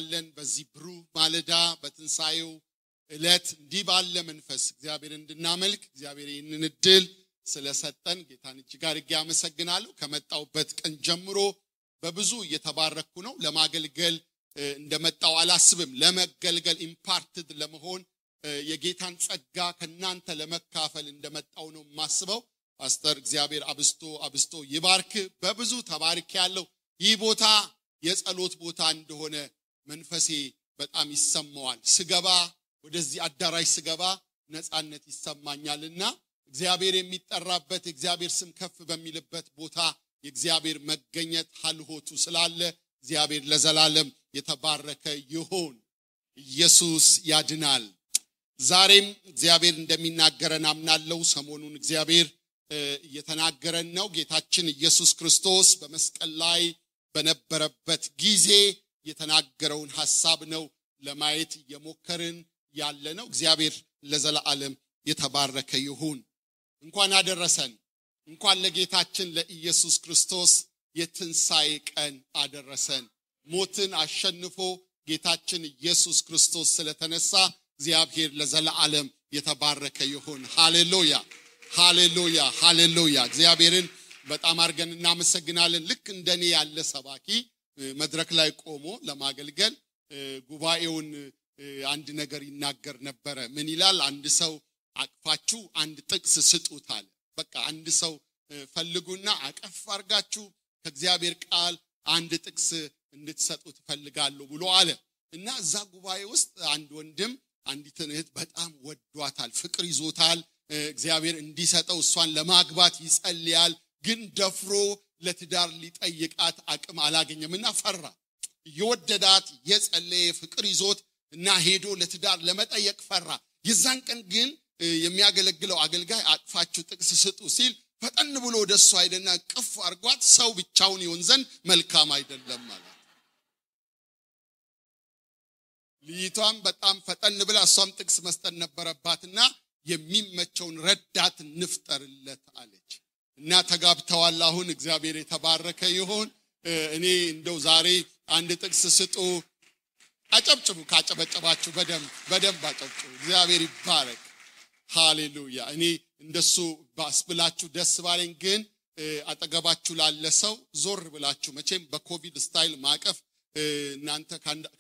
እናመሰግናለን በዚህ ብሩህ ማለዳ በትንሳኤው እለት እንዲህ ባለ መንፈስ እግዚአብሔር እንድናመልክ እግዚአብሔር ይህንን እድል ስለሰጠን ጌታን እጅግ አድርጌ አመሰግናለሁ። ከመጣውበት ቀን ጀምሮ በብዙ እየተባረኩ ነው። ለማገልገል እንደመጣው አላስብም። ለመገልገል ኢምፓርትድ ለመሆን የጌታን ጸጋ ከናንተ ለመካፈል እንደመጣው ነው ማስበው። ፓስተር እግዚአብሔር አብስቶ ይባርክ። በብዙ ተባርክ ያለው ይህ ቦታ የጸሎት ቦታ እንደሆነ መንፈሴ በጣም ይሰማዋል። ስገባ ወደዚህ አዳራሽ ስገባ ነፃነት ይሰማኛልና እግዚአብሔር የሚጠራበት እግዚአብሔር ስም ከፍ በሚልበት ቦታ የእግዚአብሔር መገኘት ሐልሆቱ ስላለ እግዚአብሔር ለዘላለም የተባረከ ይሁን። ኢየሱስ ያድናል። ዛሬም እግዚአብሔር እንደሚናገረን አምናለሁ። ሰሞኑን እግዚአብሔር እየተናገረን ነው። ጌታችን ኢየሱስ ክርስቶስ በመስቀል ላይ በነበረበት ጊዜ የተናገረውን ሐሳብ ነው ለማየት የሞከርን ያለነው። እግዚአብሔር ለዘላለም የተባረከ ይሁን። እንኳን አደረሰን። እንኳን ለጌታችን ለኢየሱስ ክርስቶስ የትንሣኤ ቀን አደረሰን። ሞትን አሸንፎ ጌታችን ኢየሱስ ክርስቶስ ስለተነሳ እግዚአብሔር ለዘላለም የተባረከ ይሁን። ሃሌሉያ ሃሌሉያ ሃሌሉያ። እግዚአብሔርን በጣም አርገን እናመሰግናለን። ልክ እንደኔ ያለ ሰባኪ መድረክ ላይ ቆሞ ለማገልገል ጉባኤውን አንድ ነገር ይናገር ነበር። ምን ይላል? አንድ ሰው አቅፋችሁ አንድ ጥቅስ ስጡታል። በቃ አንድ ሰው ፈልጉና አቀፍ አርጋችሁ ከእግዚአብሔር ቃል አንድ ጥቅስ እንድትሰጡት ፈልጋለሁ ብሎ አለ። እና እዛ ጉባኤ ውስጥ አንድ ወንድም አንዲትን እህት በጣም ወዷታል፣ ፍቅር ይዞታል። እግዚአብሔር እንዲሰጠው እሷን ለማግባት ይጸልያል። ግን ደፍሮ ለትዳር ሊጠይቃት አቅም አላገኘምና ፈራ። የወደዳት የጸለየ ፍቅር ይዞት እና ሄዶ ለትዳር ለመጠየቅ ፈራ። የዛን ቀን ግን የሚያገለግለው አገልጋይ አቅፋችሁ ጥቅስ ስጡ ሲል ፈጠን ብሎ ወደሱ አይደና ቅፍ አርጓት ሰው ብቻውን ይሆን ዘንድ መልካም አይደለም ማለት። ልይቷም በጣም ፈጠን ብላ እሷም ጥቅስ መስጠት ነበረባትና የሚመቸውን ረዳት እንፍጠርለት አለች። እና ተጋብተዋል። አሁን እግዚአብሔር የተባረከ ይሁን። እኔ እንደው ዛሬ አንድ ጥቅስ ስጡ። አጨብጭቡ። ካጨበጨባችሁ በደንብ አጨብጭቡ። እግዚአብሔር ይባረክ። ሃሌሉያ። እኔ እንደሱ ባስብላችሁ ደስ ባለኝ። ግን አጠገባችሁ ላለ ሰው ዞር ብላችሁ መቼም በኮቪድ ስታይል ማቀፍ እናንተ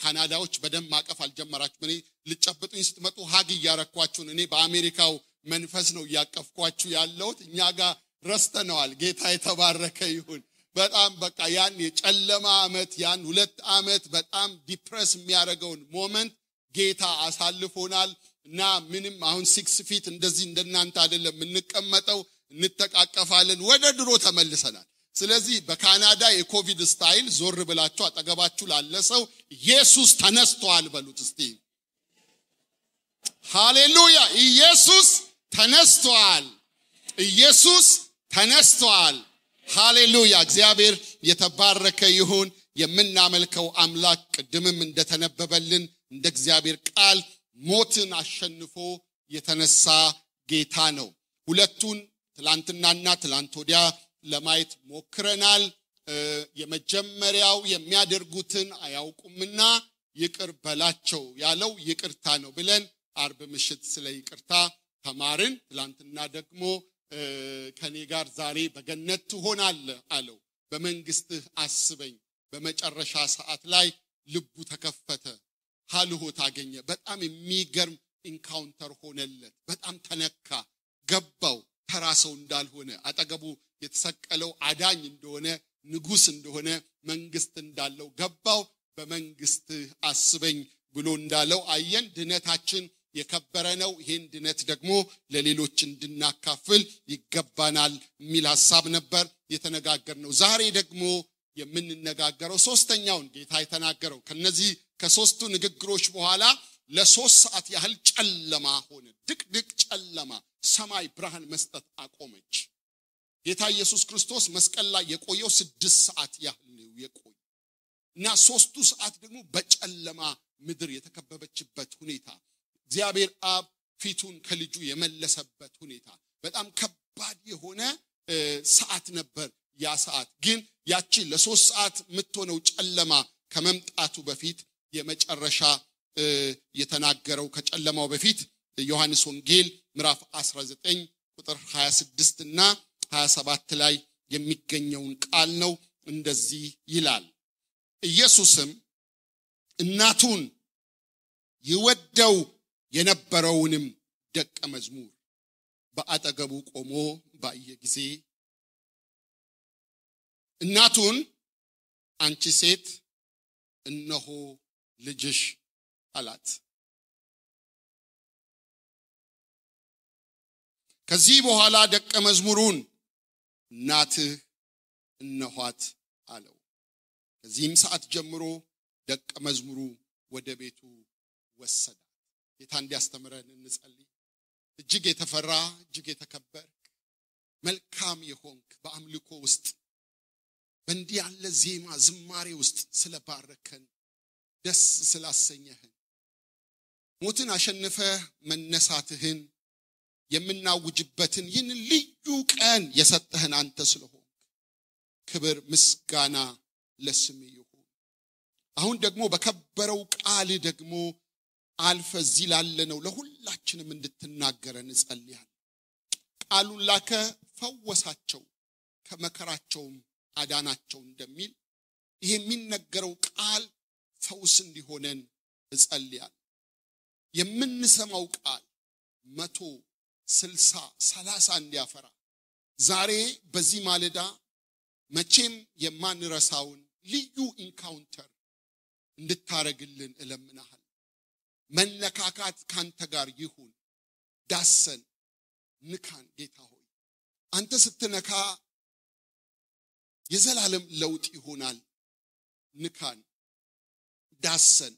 ካናዳዎች በደንብ ማቀፍ አልጀመራችሁም። እኔ ልጨብጡኝ ስትመጡ ሀግ እያረኳችሁ። እኔ በአሜሪካው መንፈስ ነው እያቀፍኳችሁ ያለሁት። እኛ ጋር ረስተነዋል። ጌታ የተባረከ ይሁን። በጣም በቃ ያን የጨለማ ዓመት ያን 2 ዓመት በጣም ዲፕረስ የሚያደርገውን ሞመንት ጌታ አሳልፎናል። እና ምንም አሁን 6 ፊት እንደዚህ እንደናንተ አይደለም የምንቀመጠው፣ እንተቃቀፋለን። ወደ ድሮ ተመልሰናል። ስለዚህ በካናዳ የኮቪድ ስታይል ዞር ብላችሁ አጠገባችሁ ላለ ሰው ኢየሱስ ተነስቷል በሉት እስቲ። ሃሌሉያ። ኢየሱስ ተነስቷል። ኢየሱስ ተነስቷል። ሃሌሉያ። እግዚአብሔር የተባረከ ይሁን። የምናመልከው አምላክ ቅድምም እንደተነበበልን እንደ እግዚአብሔር ቃል ሞትን አሸንፎ የተነሳ ጌታ ነው። ሁለቱን ትላንትናና ትላንት ወዲያ ለማየት ሞክረናል። የመጀመሪያው የሚያደርጉትን አያውቁምና ይቅር በላቸው ያለው ይቅርታ ነው ብለን አርብ ምሽት ስለ ይቅርታ ተማርን። ትላንትና ደግሞ ከኔ ጋር ዛሬ በገነት ትሆናለህ አለው። በመንግስትህ አስበኝ። በመጨረሻ ሰዓት ላይ ልቡ ተከፈተ፣ ሐልሆት አገኘ። በጣም የሚገርም ኢንካውንተር ሆነለት። በጣም ተነካ፣ ገባው ተራ ሰው እንዳልሆነ፣ አጠገቡ የተሰቀለው አዳኝ እንደሆነ፣ ንጉስ እንደሆነ፣ መንግስት እንዳለው ገባው። በመንግስትህ አስበኝ ብሎ እንዳለው አየን። ድነታችን የከበረ ነው። ይሄን ድነት ደግሞ ለሌሎች እንድናካፍል ይገባናል የሚል ሐሳብ ነበር የተነጋገርነው። ዛሬ ደግሞ የምንነጋገረው ሶስተኛውን ጌታ የተናገረው ከነዚህ ከሶስቱ ንግግሮች በኋላ ለ3 ሰዓት ያህል ጨለማ ሆነ። ድቅድቅ ጨለማ፣ ሰማይ ብርሃን መስጠት አቆመች። ጌታ ኢየሱስ ክርስቶስ መስቀል ላይ የቆየው 6 ሰዓት ያህል ነው የቆየው እና 3ቱ ሰዓት ደግሞ በጨለማ ምድር የተከበበችበት ሁኔታ፣ እግዚአብሔር አብ ፊቱን ከልጁ የመለሰበት ሁኔታ፣ በጣም ከባድ የሆነ ሰዓት ነበር ያ ሰዓት። ግን ያቺ ለ3 ሰዓት የምትሆነው ጨለማ ከመምጣቱ በፊት የመጨረሻ የተናገረው ከጨለማው በፊት ዮሐንስ ወንጌል ምዕራፍ 19 ቁጥር 26 እና 27 ላይ የሚገኘውን ቃል ነው። እንደዚህ ይላል። ኢየሱስም እናቱን ይወደው የነበረውንም ደቀ መዝሙር በአጠገቡ ቆሞ ባየ ጊዜ እናቱን አንቺ ሴት እነሆ ልጅሽ አላት። ከዚህ በኋላ ደቀ መዝሙሩን እናትህ እነኋት አለው። ከዚህም ሰዓት ጀምሮ ደቀ መዝሙሩ ወደ ቤቱ ወሰዳት። ጌታ እንዲያስተምረን እንጸልይ። እጅግ የተፈራ እጅግ የተከበርክ መልካም የሆንክ በአምልኮ ውስጥ በእንዲህ ያለ ዜማ ዝማሬ ውስጥ ስለባረከን ደስ ስላሰኘህን ሞትን አሸንፈ መነሳትህን የምናውጅበትን ይህን ልዩ ቀን የሰጠህን አንተ ስለሆንክ ክብር ምስጋና ለስምህ ይሁን። አሁን ደግሞ በከበረው ቃል ደግሞ አልፈ እዚህ ላለነው ለሁላችንም እንድትናገረን እንጸልያለን። ቃሉን ላከ ፈወሳቸው ከመከራቸውም አዳናቸው እንደሚል ይሄ የሚነገረው ቃል ፈውስ እንዲሆነን እጸልያለሁ። የምንሰማው ቃል 100 60 30 እንዲያፈራ ዛሬ በዚህ ማለዳ መቼም የማንረሳውን ልዩ ኢንካውንተር እንድታረግልን እለምናለሁ። መነካካት ካንተ ጋር ይሁን። ዳሰን ንካን ጌታ ሆይ። አንተ ስትነካ የዘላለም ለውጥ ይሆናል። ንካን ዳሰን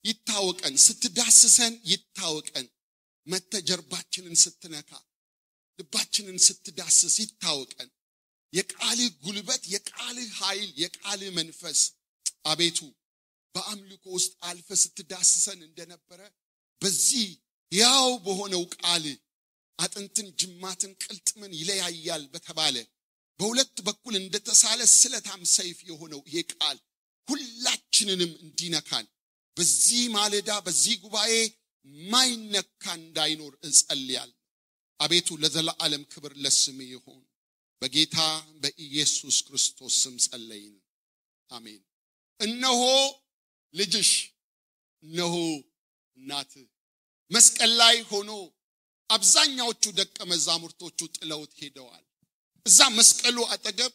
ይታወቀን። ስትዳስሰን ይታወቀን። መተጀርባችንን ስትነካ ልባችንን ስትዳስስ ይታወቀን። የቃልህ ጉልበት የቃልህ ኃይል የቃልህ መንፈስ አቤቱ በአምልኮ ውስጥ አልፈ ስትዳስሰን እንደነበረ በዚህ ያው በሆነው ቃል አጥንትን ጅማትን ቅልጥምን ይለያያል በተባለ በሁለት በኩል እንደተሳለ ስለታም ሰይፍ የሆነው ይሄ ቃል ሁላችንንም እንዲነካን በዚህ ማለዳ በዚህ ጉባኤ ማይነካ እንዳይኖር እጸልያለሁ። አቤቱ ለዘላለም ክብር ለስምህ ይሁን። በጌታ በኢየሱስ ክርስቶስ ስም ጸለይን፣ አሜን። እነሆ ልጅሽ እነሆ እናትህ መስቀል ላይ ሆኖ አብዛኛዎቹ ደቀ መዛሙርቶቹ ጥለውት ሄደዋል። እዛ መስቀሉ አጠገብ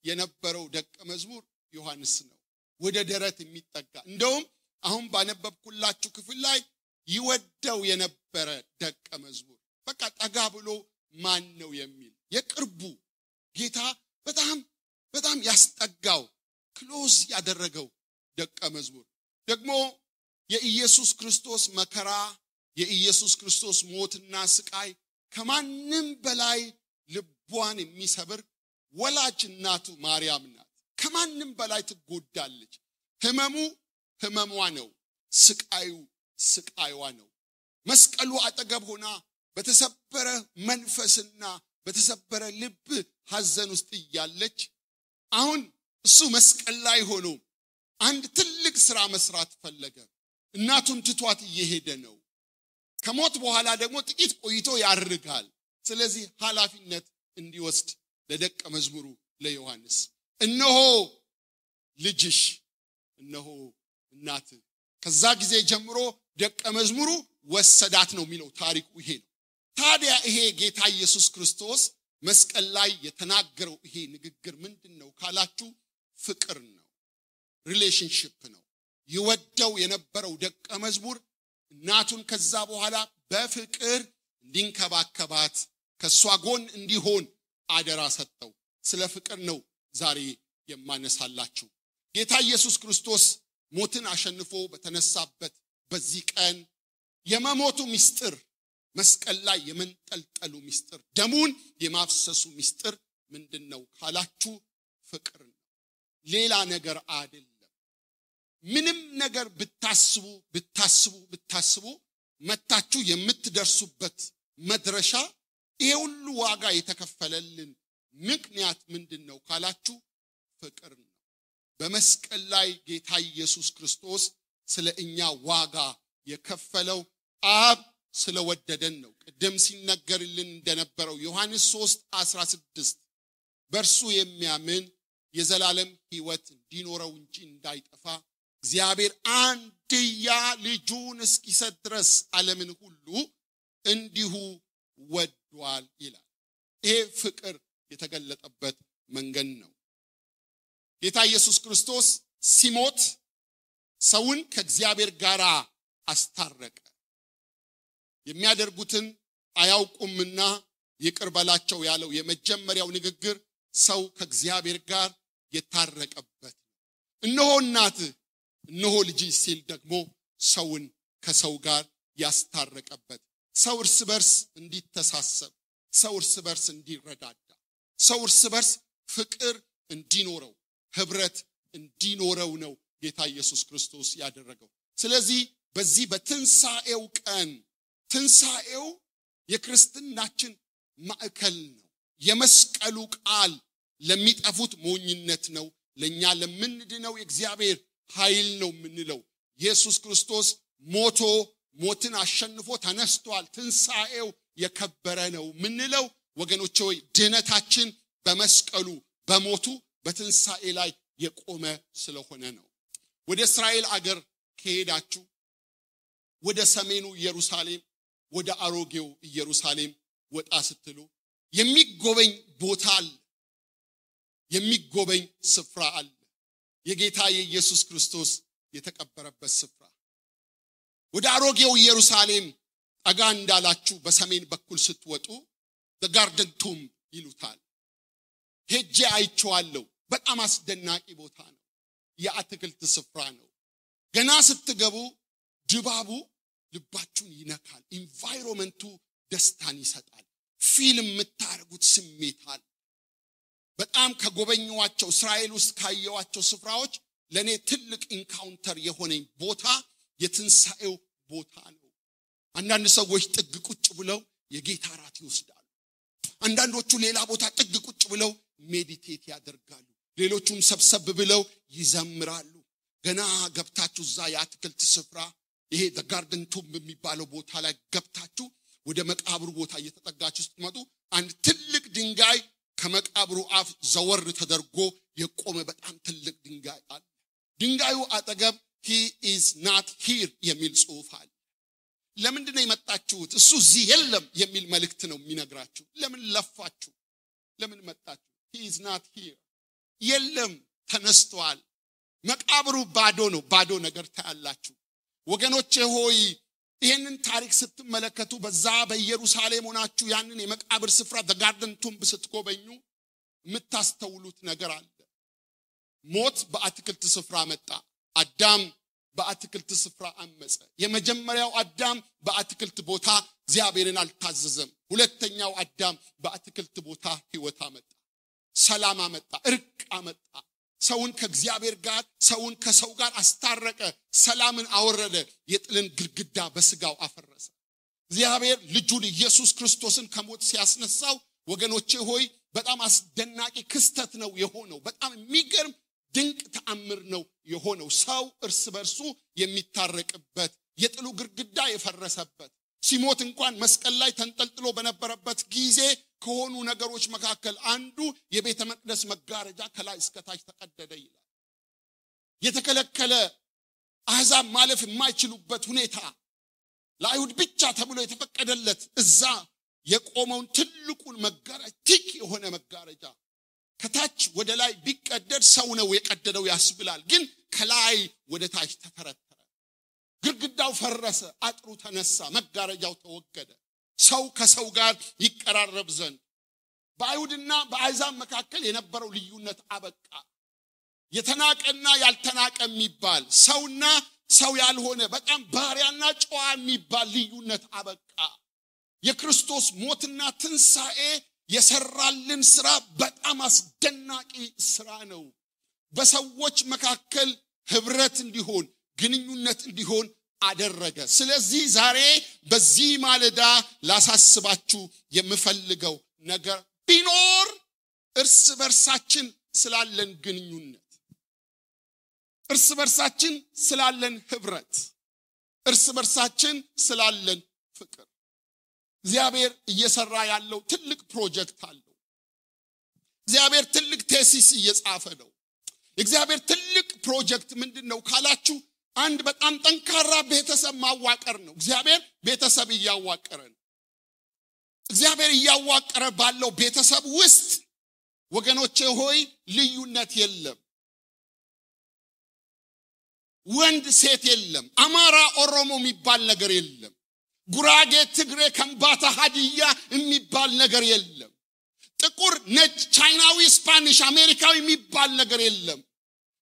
የነበረው ደቀ መዝሙር ዮሐንስ ነው። ወደ ደረት የሚጠጋ እንደውም አሁን ባነበብኩላችሁ ክፍል ላይ ይወደው የነበረ ደቀ መዝሙር በቃ ጠጋ ብሎ ማን ነው የሚል የቅርቡ ጌታ በጣም ያስጠጋው ክሎዝ ያደረገው ደቀ መዝሙር ደግሞ የኢየሱስ ክርስቶስ መከራ የኢየሱስ ክርስቶስ ሞትና ስቃይ ከማንም በላይ ልቧን የሚሰብር ወላጅ እናቱ ማርያም ናት። ከማንም በላይ ትጎዳለች። ህመሟ ነው፣ ስቃይዋ ነው። መስቀሉ አጠገብ ሆና በተሰበረ መንፈስና በተሰበረ ልብ ሐዘን ውስጥ እያለች አሁን እሱ መስቀል ላይ ሆኖ አንድ ትልቅ ሥራ መስራት ፈለገ። እናቱን ትቷት እየሄደ ነው። ከሞት በኋላ ደግሞ ጥቂት ቆይቶ ያርጋል። ስለዚህ ኃላፊነት እንዲወስድ ለደቀ መዝሙሩ ለዮሐንስ እነሆ ልጅሽ እነሆ እናትህ። ከዛ ጊዜ ጀምሮ ደቀ መዝሙሩ ወሰዳት ነው የሚለው ታሪኩ ይሄ ነው። ታዲያ ይሄ ጌታ ኢየሱስ ክርስቶስ መስቀል ላይ የተናገረው ይሄ ንግግር ምንድነው ካላችሁ ፍቅር ነው፣ ሪሌሽንሺፕ ነው። ይወደው የነበረው ደቀ መዝሙር እናቱን ከዛ በኋላ በፍቅር እንዲንከባከባት ከሷ ጎን እንዲሆን አደራ ሰጠው። ስለ ፍቅር ነው ዛሬ የማነሳላችሁ። ጌታ ኢየሱስ ክርስቶስ ሞትን አሸንፎ በተነሳበት በዚህ ቀን የመሞቱ ምስጢር መስቀል ላይ የመንጠልጠሉ ምስጢር ደሙን የማፍሰሱ ምስጢር ምንድነው ካላችሁ ፍቅር ነው፣ ሌላ ነገር አይደለም። ምንም ነገር ብታስቡ መታችሁ የምትደርሱበት መድረሻ ይሄ ሁሉ ዋጋ የተከፈለልን ምክንያት ምንድነው ካላችሁ ፍቅር ነው። በመስቀል ላይ ጌታ ኢየሱስ ክርስቶስ ስለ እኛ ዋጋ የከፈለው አብ ስለወደደን ነው። ቅድም ሲነገርልን እንደነበረው ዮሐንስ 3:16 በእርሱ የሚያምን የዘላለም ሕይወት እንዲኖረው እንጂ እንዳይጠፋ እግዚአብሔር አንድያ ልጁን እስኪሰጥ ድረስ ዓለምን ሁሉ እንዲሁ ወዷል ይላል። ይሄ ፍቅር የተገለጠበት መንገድ ነው። ጌታ ኢየሱስ ክርስቶስ ሲሞት ሰውን ከእግዚአብሔር ጋር አስታረቀ። የሚያደርጉትን አያውቁምና ይቅር በላቸው ያለው የመጀመሪያው ንግግር ሰው ከእግዚአብሔር ጋር የታረቀበት። እነሆ እናትህ እነሆ ልጅ ሲል ደግሞ ሰውን ከሰው ጋር ያስታረቀበት። ሰው እርስ በርስ እንዲተሳሰብ፣ ሰው እርስ በርስ እንዲረዳዳ፣ ሰው እርስ በርስ ፍቅር እንዲኖረው፣ ህብረት እንዲኖረው ነው ጌታ ኢየሱስ ክርስቶስ ያደረገው። ስለዚህ በዚህ በትንሳኤው ቀን ትንሳኤው የክርስትናችን ማዕከል ነው። የመስቀሉ ቃል ለሚጠፉት ሞኝነት ነው፣ ለኛ ለምንድነው የእግዚአብሔር ኃይል ነው የምንለው። ኢየሱስ ክርስቶስ ሞቶ ሞትን አሸንፎ ተነስቷል። ትንሳኤው የከበረ ነው ምንለው ወገኖቼ ሆይ ድነታችን በመስቀሉ በሞቱ በትንሳኤ ላይ የቆመ ስለሆነ ነው። ወደ እስራኤል አገር ከሄዳችሁ ወደ ሰሜኑ ኢየሩሳሌም ወደ አሮጌው ኢየሩሳሌም ወጣ ስትሉ የሚጎበኝ ቦታ አለ፣ የሚጎበኝ ስፍራ አለ። የጌታ የኢየሱስ ክርስቶስ የተቀበረበት ስፍራ። ወደ አሮጌው ኢየሩሳሌም ጠጋ እንዳላችሁ በሰሜን በኩል ስትወጡ the garden tomb ይሉታል። ሄጄ አይቼዋለሁ። በጣም አስደናቂ ቦታ ነው። የአትክልት ስፍራ ነው። ገና ስትገቡ ድባቡ ልባችሁን ይነካል። ኢንቫይሮመንቱ ደስታን ይሰጣል። ፊልም የምታረጉት ስሜት አለ። በጣም ከጎበኘዋቸው እስራኤል ውስጥ ካየዋቸው ስፍራዎች ለኔ ትልቅ ኢንካውንተር የሆነኝ ቦታ የትንሳኤው ቦታ ነው። አንዳንድ ሰዎች ጥግ ቁጭ ብለው የጌታ ራት ይወስዳሉ። አንዳንዶቹ ሌላ ቦታ ጥግ ቁጭ ብለው ሜዲቴት ያደርጋሉ። ሌሎቹም ሰብሰብ ብለው ይዘምራሉ። ገና ገብታችሁ እዛ የአትክልት ስፍራ ይሄ the garden tomb የሚባለው ቦታ ላይ ገብታችሁ ወደ መቃብሩ ቦታ እየተጠጋችሁ ስትመጡ አንድ ትልቅ ድንጋይ ከመቃብሩ አፍ ዘወር ተደርጎ የቆመ በጣም ትልቅ ድንጋይ አለ። ድንጋዩ አጠገብ he is not here የሚል ጽሑፍ አለ። ለምንድን ነው የመጣችሁት? እሱ እዚህ የለም የሚል መልእክት ነው የሚነግራችሁ። ለምን ለፋችሁ? ለምን መጣችሁ? he is not here የለም፣ ተነስቷል። መቃብሩ ባዶ ነው። ባዶ ነገር ታያላችሁ። ወገኖቼ ሆይ ይሄንን ታሪክ ስትመለከቱ በዛ በኢየሩሳሌም ሆናችሁ ያንን የመቃብር ስፍራ the garden tomb ስትጎበኙ የምታስተውሉት ነገር አለ። ሞት በአትክልት ስፍራ መጣ። አዳም በአትክልት ስፍራ አመፀ። የመጀመሪያው አዳም በአትክልት ቦታ እግዚአብሔርን አልታዘዘም። ሁለተኛው አዳም በአትክልት ቦታ ሕይወት አመጣ፣ ሰላም አመጣ፣ እርቅ አመጣ። ሰውን ከእግዚአብሔር ጋር ሰውን ከሰው ጋር አስታረቀ፣ ሰላምን አወረደ፣ የጥልን ግድግዳ በስጋው አፈረሰ። እግዚአብሔር ልጁን ኢየሱስ ክርስቶስን ከሞት ሲያስነሳው ወገኖቼ ሆይ በጣም አስደናቂ ክስተት ነው የሆነው። በጣም የሚገርም ድንቅ ተአምር ነው የሆነው። ሰው እርስ በርሱ የሚታረቅበት፣ የጥሉ ግድግዳ የፈረሰበት፣ ሲሞት እንኳን መስቀል ላይ ተንጠልጥሎ በነበረበት ጊዜ ከሆኑ ነገሮች መካከል አንዱ የቤተ መቅደስ መጋረጃ ከላይ እስከ ታች ተቀደደ ይላል። የተከለከለ አሕዛብ ማለፍ የማይችሉበት ሁኔታ ለአይሁድ ብቻ ተብሎ የተፈቀደለት እዛ የቆመውን ትልቁን መጋረጃ ቲክ የሆነ መጋረጃ ከታች ወደ ላይ ቢቀደድ ሰው ነው የቀደደው ያስብላል። ግን ከላይ ወደ ታች ተተረተረ። ግድግዳው ፈረሰ፣ አጥሩ ተነሳ፣ መጋረጃው ተወገደ። ሰው ከሰው ጋር ይቀራረብ ዘንድ በአይሁድና በአሕዛብ መካከል የነበረው ልዩነት አበቃ። የተናቀና ያልተናቀ የሚባል ሰውና ሰው ያልሆነ በጣም ባሪያና ጨዋ የሚባል ልዩነት አበቃ። የክርስቶስ ሞትና ትንሳኤ የሰራልን ስራ በጣም አስደናቂ ስራ ነው። በሰዎች መካከል ህብረት እንዲሆን ግንኙነት እንዲሆን አደረገ። ስለዚህ ዛሬ በዚህ ማለዳ ላሳስባችሁ የምፈልገው ነገር ቢኖር እርስ በርሳችን ስላለን ግንኙነት፣ እርስ በርሳችን ስላለን ህብረት እርስ በርሳችን ስላለን ፍቅር እግዚአብሔር እየሰራ ያለው ትልቅ ፕሮጀክት አለው እግዚአብሔር ትልቅ ቴሲስ እየጻፈ ነው እግዚአብሔር ትልቅ ፕሮጀክት ምንድነው ካላችሁ አንድ በጣም ጠንካራ ቤተሰብ ማዋቀር ነው እግዚአብሔር ቤተሰብ ያዋቀረ ነው እግዚአብሔር ያዋቀረ ባለው ቤተሰብ ውስጥ ወገኖቼ ሆይ ልዩነት የለም ወንድ ሴት የለም አማራ ኦሮሞ የሚባል ነገር የለም ጉራጌ ትግሬ ከምባታ ሀዲያ የሚባል ነገር የለም ጥቁር ነጭ ቻይናዊ ስፓኒሽ አሜሪካዊ የሚባል ነገር የለም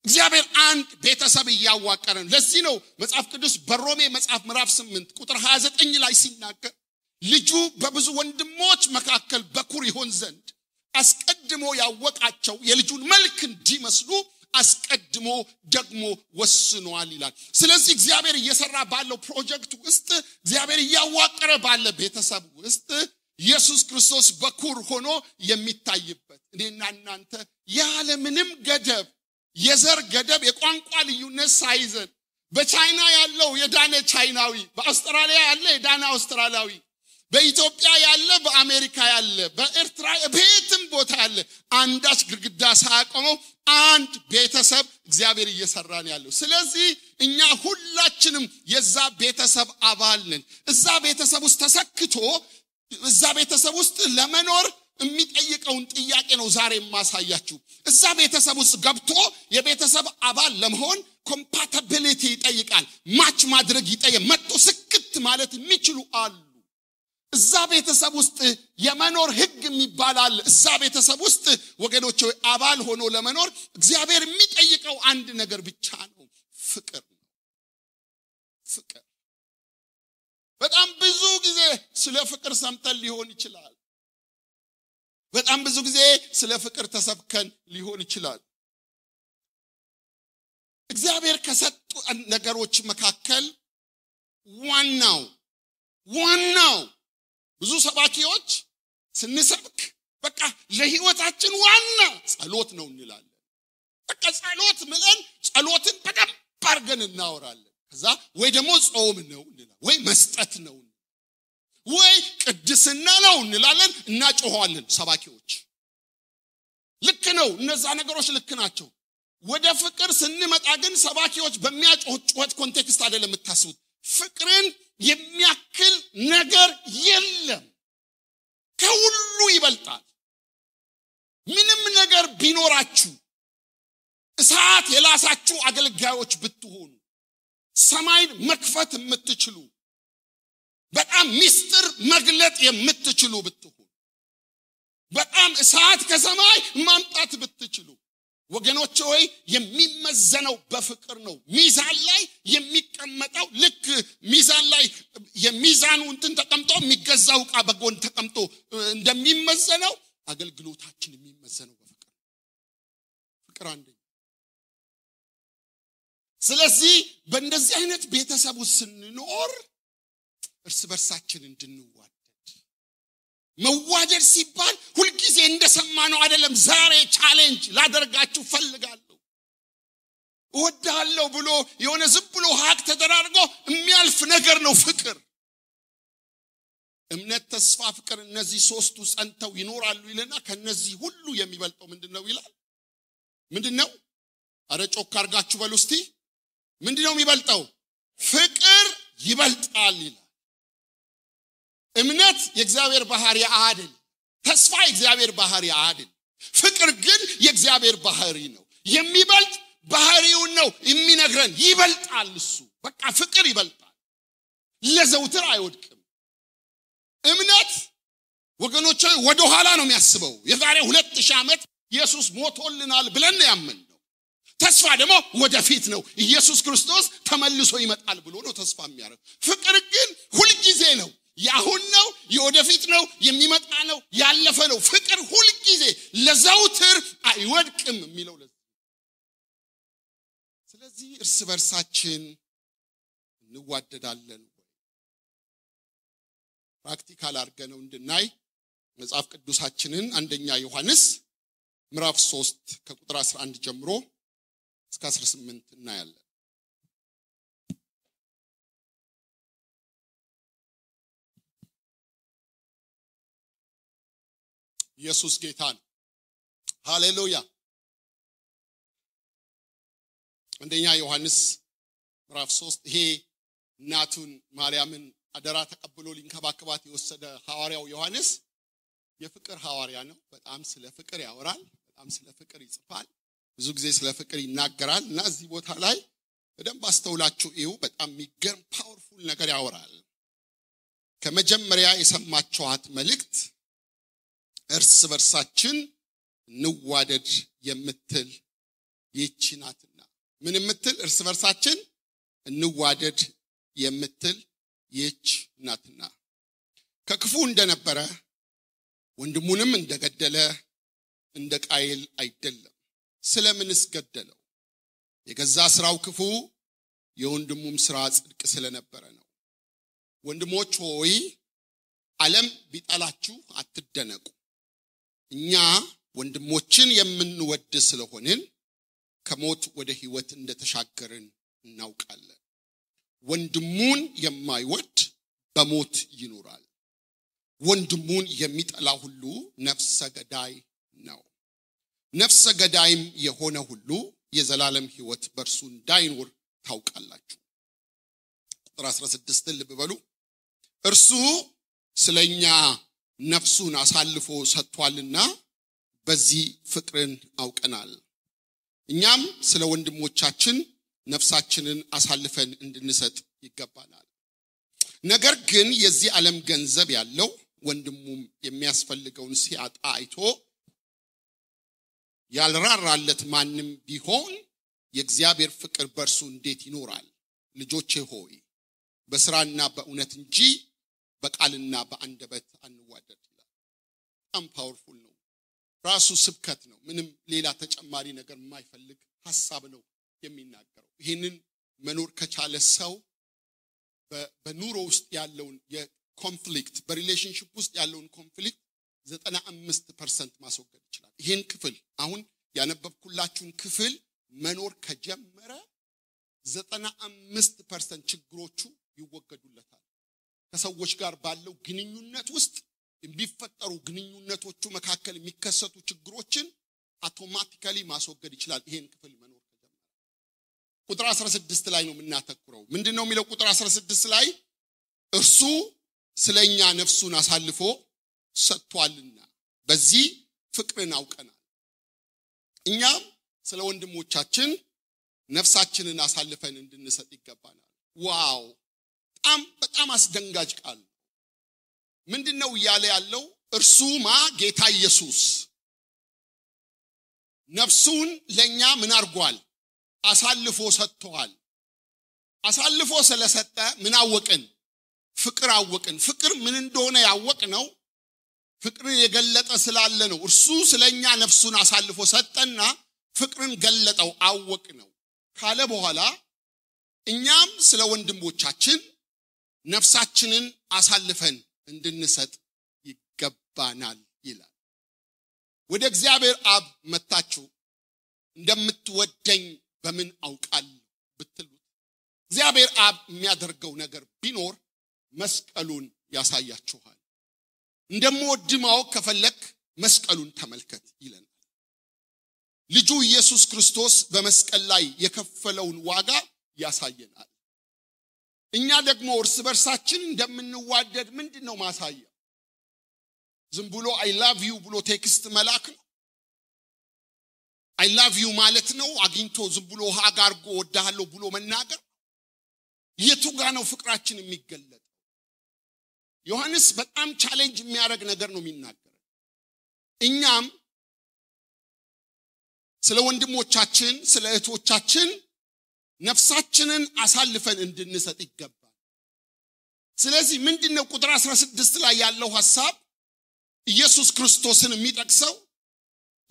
እግዚአብሔር አንድ ቤተሰብ ያዋቀረ ነው ለዚህ ነው መጽሐፍ ቅዱስ በሮሜ መጽሐፍ ምዕራፍ 8 ቁጥር 29 ላይ ሲናገር ልጁ በብዙ ወንድሞች መካከል በኩር ይሆን ዘንድ አስቀድሞ ያወቃቸው የልጁን መልክ እንዲመስሉ አስቀድሞ ደግሞ ወስኗል ይላል ስለዚህ እግዚአብሔር እየሰራ ባለው ፕሮጀክት ውስጥ እግዚአብሔር ያዋቀረ ባለ ቤተሰብ ውስጥ ኢየሱስ ክርስቶስ በኩር ሆኖ የሚታይበት እኔና እናንተ ያለ ምንም ገደብ የዘር ገደብ የቋንቋ ልዩነት ሳይዘን በቻይና ያለው የዳነ ቻይናዊ በአውስትራሊያ ያለ የዳነ አውስትራሊያዊ በኢትዮጵያ ያለ በአሜሪካ ያለ በኤርትራ በየትም ቦታ ያለ አንዳች ግድግዳ ሳያቆመው አንድ ቤተሰብ እግዚአብሔር እየሰራን ያለው ስለዚህ እኛ ሁላችንም የዛ ቤተሰብ አባል ነን እዛ ቤተሰብ ውስጥ ተሰክቶ እዛ ቤተሰብ ውስጥ ለመኖር የሚጠይቀውን ጥያቄ ነው ዛሬ ማሳያችሁ እዛ ቤተሰብ ውስጥ ገብቶ የቤተሰብ አባል ለመሆን ኮምፓቲቢሊቲ ይጠይቃል ማች ማድረግ ይጠይቃል መጥቶ ስክት ማለት የሚችሉ አሉ እዛ ቤተሰብ ውስጥ የመኖር ህግ የሚባላል እዛ ቤተሰብ ውስጥ ወገኖች አባል ሆኖ ለመኖር እግዚአብሔር የሚጠይቀው አንድ ነገር ብቻ ነው ፍቅር ነው ፍቅር በጣም ብዙ ጊዜ ስለ ፍቅር ሰምተን ሊሆን ይችላል በጣም ብዙ ጊዜ ስለ ፍቅር ተሰብከን ሊሆን ይችላል እግዚአብሔር ከሰጡ ነገሮች መካከል ዋናው ብዙ ሰባኪዎች ስንሰብክ በቃ ለህይወታችን ዋና ጸሎት ነው እንላለን በቃ ጸሎት ምለን ጸሎትን በደንብ አድርገን እናወራለን ከዛ ወይ ደግሞ ጾም ነው እንላለን ወይ መስጠት ነው ወይ ቅድስና ነው እንላለን እናጮሃለን ሰባኪዎች ልክ ነው እነዛ ነገሮች ልክ ናቸው ወደ ፍቅር ስንመጣ ግን ሰባኪዎች በሚያጮህት ኮንቴክስት አይደለም የምታስቡት ፍቅርን የሚያክል ነገር የለም ከሁሉ ይበልጣል ምንም ነገር ቢኖራችሁ እሳት የላሳችሁ አገልጋዮች ብትሆኑ ሰማይን መክፈት የምትችሉ በጣም ሚስጥር መግለጥ የምትችሉ ብትሆኑ በጣም እሳት ከሰማይ ማምጣት ብትችሉ ወገኖች ሆይ የሚመዘነው በፍቅር ነው ሚዛን ላይ የሚቀመጠው ልክ ሚዛን ላይ የሚዛኑ እንትን ተቀምጦ የሚገዛው ዕቃ በጎን ተቀምጦ እንደሚመዘነው አገልግሎታችን የሚመዘነው በፍቅር ፍቅር አንደኛ ስለዚህ በእንደዚህ አይነት ቤተሰብ ውስጥ ስንኖር እርስ በርሳችን እንድንዋደድ መዋደድ ሲባል ሁሉ ጊዜ እንደሰማነው አይደለም ዛሬ ቻሌንጅ ላደርጋችሁ ፈልጋለሁ ወዳለው ብሎ የሆነ ዝም ብሎ ሀቅ ተደራርጎ የሚያልፍ ነገር ነው ፍቅር እምነት ተስፋ ፍቅር እነዚህ ሶስቱ ጸንተው ይኖራሉ ይለና ከነዚህ ሁሉ የሚበልጠው ምንድነው ይላል ምንድነው አረ ጮክ አርጋችሁ በሉ እስቲ ምንድነው የሚበልጠው ፍቅር ይበልጣል ይላል እምነት የእግዚአብሔር ባህሪ አይደል ተስፋ የእግዚአብሔር ባህሪ አይደል ፍቅር ግን የእግዚአብሔር ባህሪ ነው የሚበልጥ ባህሪው ነው የሚነግረን ይበልጣል እሱ በቃ ፍቅር ይበልጣል ለዘውትር አይወድቅም እምነት ወገኖቼ ወደ ኋላ ነው የሚያስበው የዛሬ 2000 ዓመት ኢየሱስ ሞቶልናል ብለን ያመንነው ተስፋ ደግሞ ወደፊት ነው ኢየሱስ ክርስቶስ ተመልሶ ይመጣል ብሎ ነው ተስፋ የሚያደርግ ፍቅር ግን ሁሉ ጊዜ ነው ያሁን ነው የወደፊት ነው የሚመጣ ነው ያለፈ ነው ፍቅር ሁሉ ጊዜ ለዘውትር አይወድቅም የሚለው ስለዚህ እርስ በርሳችን እንዋደዳለን ፕራክቲካል አድርገነው እንድናይ መጽሐፍ ቅዱሳችንን አንደኛ ዮሐንስ ምዕራፍ 3 ከቁጥር 11 ጀምሮ እስከ 18 እናያለን። ኢየሱስ ጌታ ነው። ሃሌሉያ። አንደኛ ዮሐንስ ምዕራፍ 3 ይሄ እናቱን ማርያምን አደራ ተቀብሎ ሊንከባከባት የወሰደ ሐዋርያው ዮሐንስ የፍቅር ሐዋርያ ነው። በጣም ስለ ፍቅር ያወራል፣ በጣም ስለ ፍቅር ይጽፋል፣ ብዙ ጊዜ ስለ ፍቅር ይናገራል እና እዚህ ቦታ ላይ በደንብ አስተውላችሁ እዩ። በጣም የሚገርም ፓወርፉል ነገር ያወራል። ከመጀመሪያ የሰማችኋት መልእክት እርስ በርሳችን እንዋደድ የምትል ይህች ናትና። ምን የምትል? እርስ በርሳችን እንዋደድ የምትል ይህች ናትና። ከክፉ እንደነበረ ወንድሙንም እንደገደለ እንደ ቃየል አይደለም። ስለምንስ ገደለው? የገዛ ስራው ክፉ የወንድሙም ስራ ጽድቅ ስለነበረ ነው። ወንድሞች ሆይ ዓለም ቢጠላችሁ አትደነቁ። እኛ ወንድሞችን የምንወድ ስለሆንን ከሞት ወደ ሕይወት እንደተሻገርን እናውቃለን። ወንድሙን የማይወድ በሞት ይኖራል። ወንድሙን የሚጠላ ሁሉ ነፍሰ ገዳይ ነው። ነፍሰ ገዳይም የሆነ ሁሉ የዘላለም ሕይወት በእርሱ እንዳይኖር ታውቃላችሁ። ቁጥር 16 ልብ በሉ። እርሱ ስለኛ ነፍሱን አሳልፎ ሰጥቷልና በዚህ ፍቅርን አውቀናል። እኛም ስለ ወንድሞቻችን ነፍሳችንን አሳልፈን እንድንሰጥ ይገባናል። ነገር ግን የዚህ ዓለም ገንዘብ ያለው ወንድሙም የሚያስፈልገውን ሲያጣ አይቶ ያልራራለት ማንም ቢሆን የእግዚአብሔር ፍቅር በእርሱ እንዴት ይኖራል? ልጆቼ ሆይ በስራና በእውነት እንጂ በቃልና በአንደበት አንዋደድ ይላል። በጣም ፓወርፉል ነው። ራሱ ስብከት ነው። ምንም ሌላ ተጨማሪ ነገር የማይፈልግ ሐሳብ ነው የሚናገረው። ይሄንን መኖር ከቻለ ሰው በኑሮ ውስጥ ያለውን የኮንፍሊክት በሪሌሽንሺፕ ውስጥ ያለውን ኮንፍሊክት 95% ማስወገድ ይችላል። ይሄን ክፍል አሁን ያነበብኩላችሁን ክፍል መኖር ከጀመረ 95% ችግሮቹ ይወገዱለታል። ከሰዎች ጋር ባለው ግንኙነት ውስጥ የሚፈጠሩ ግንኙነቶቹ መካከል የሚከሰቱ ችግሮችን አውቶማቲካሊ ማስወገድ ይችላል። ይሄን ክፍል መኖር ከጀመረ ቁጥር 16 ላይ ነው የምናተኩረው። ምንድነው የሚለው? ቁጥር 16 ላይ እርሱ ስለኛ ነፍሱን አሳልፎ ሰጥቷልና በዚህ ፍቅርን አውቀናል። እኛም ስለ ወንድሞቻችን ነፍሳችንን አሳልፈን እንድንሰጥ ይገባናል። ዋው! በጣም አስደንጋጭ ቃል። ምንድነው እያለ ያለው? እርሱማ ጌታ ኢየሱስ ነፍሱን ለኛ ምን አርጓል? አሳልፎ ሰጥቷል። አሳልፎ ስለሰጠ ምን አወቅን? ፍቅር አወቅን። ፍቅር ምን እንደሆነ ያወቅነው ፍቅርን የገለጠ ስላለ ነው። እርሱ ስለኛ ነፍሱን አሳልፎ ሰጠና ፍቅርን ገለጠው፣ አወቅነው ካለ በኋላ እኛም ስለ ወንድሞቻችን ነፍሳችንን አሳልፈን እንድንሰጥ ይገባናል ይላል። ወደ እግዚአብሔር አብ መጣችሁ እንደምትወደኝ በምን አውቃለሁ ብትሉት እግዚአብሔር አብ የሚያደርገው ነገር ቢኖር መስቀሉን ያሳያችኋል። እንደምወድ ማወቅ ከፈለክ መስቀሉን ተመልከት ይለናል። ልጁ ኢየሱስ ክርስቶስ በመስቀል ላይ የከፈለውን ዋጋ ያሳየናል። እኛ ደግሞ እርስ በርሳችን እንደምንዋደድ ምንድነው ማሳያ? ዝም ብሎ አይ ላቭ ዩ ብሎ ቴክስት መላክ ነው? አይ ላቭ ዩ ማለት ነው አግኝቶ ዝም ብሎ ሀግ አርጎ ወዳሃለሁ ብሎ መናገር? የቱ ጋር ነው ፍቅራችን የሚገለጠው? ዮሐንስ በጣም ቻሌንጅ የሚያደርግ ነገር ነው የሚናገረው። እኛም ስለ ወንድሞቻችን ስለ እህቶቻችን ነፍሳችንን አሳልፈን እንድንሰጥ ይገባል። ስለዚህ ምንድነው ቁጥር 16 ላይ ያለው ሐሳብ? ኢየሱስ ክርስቶስን የሚጠቅሰው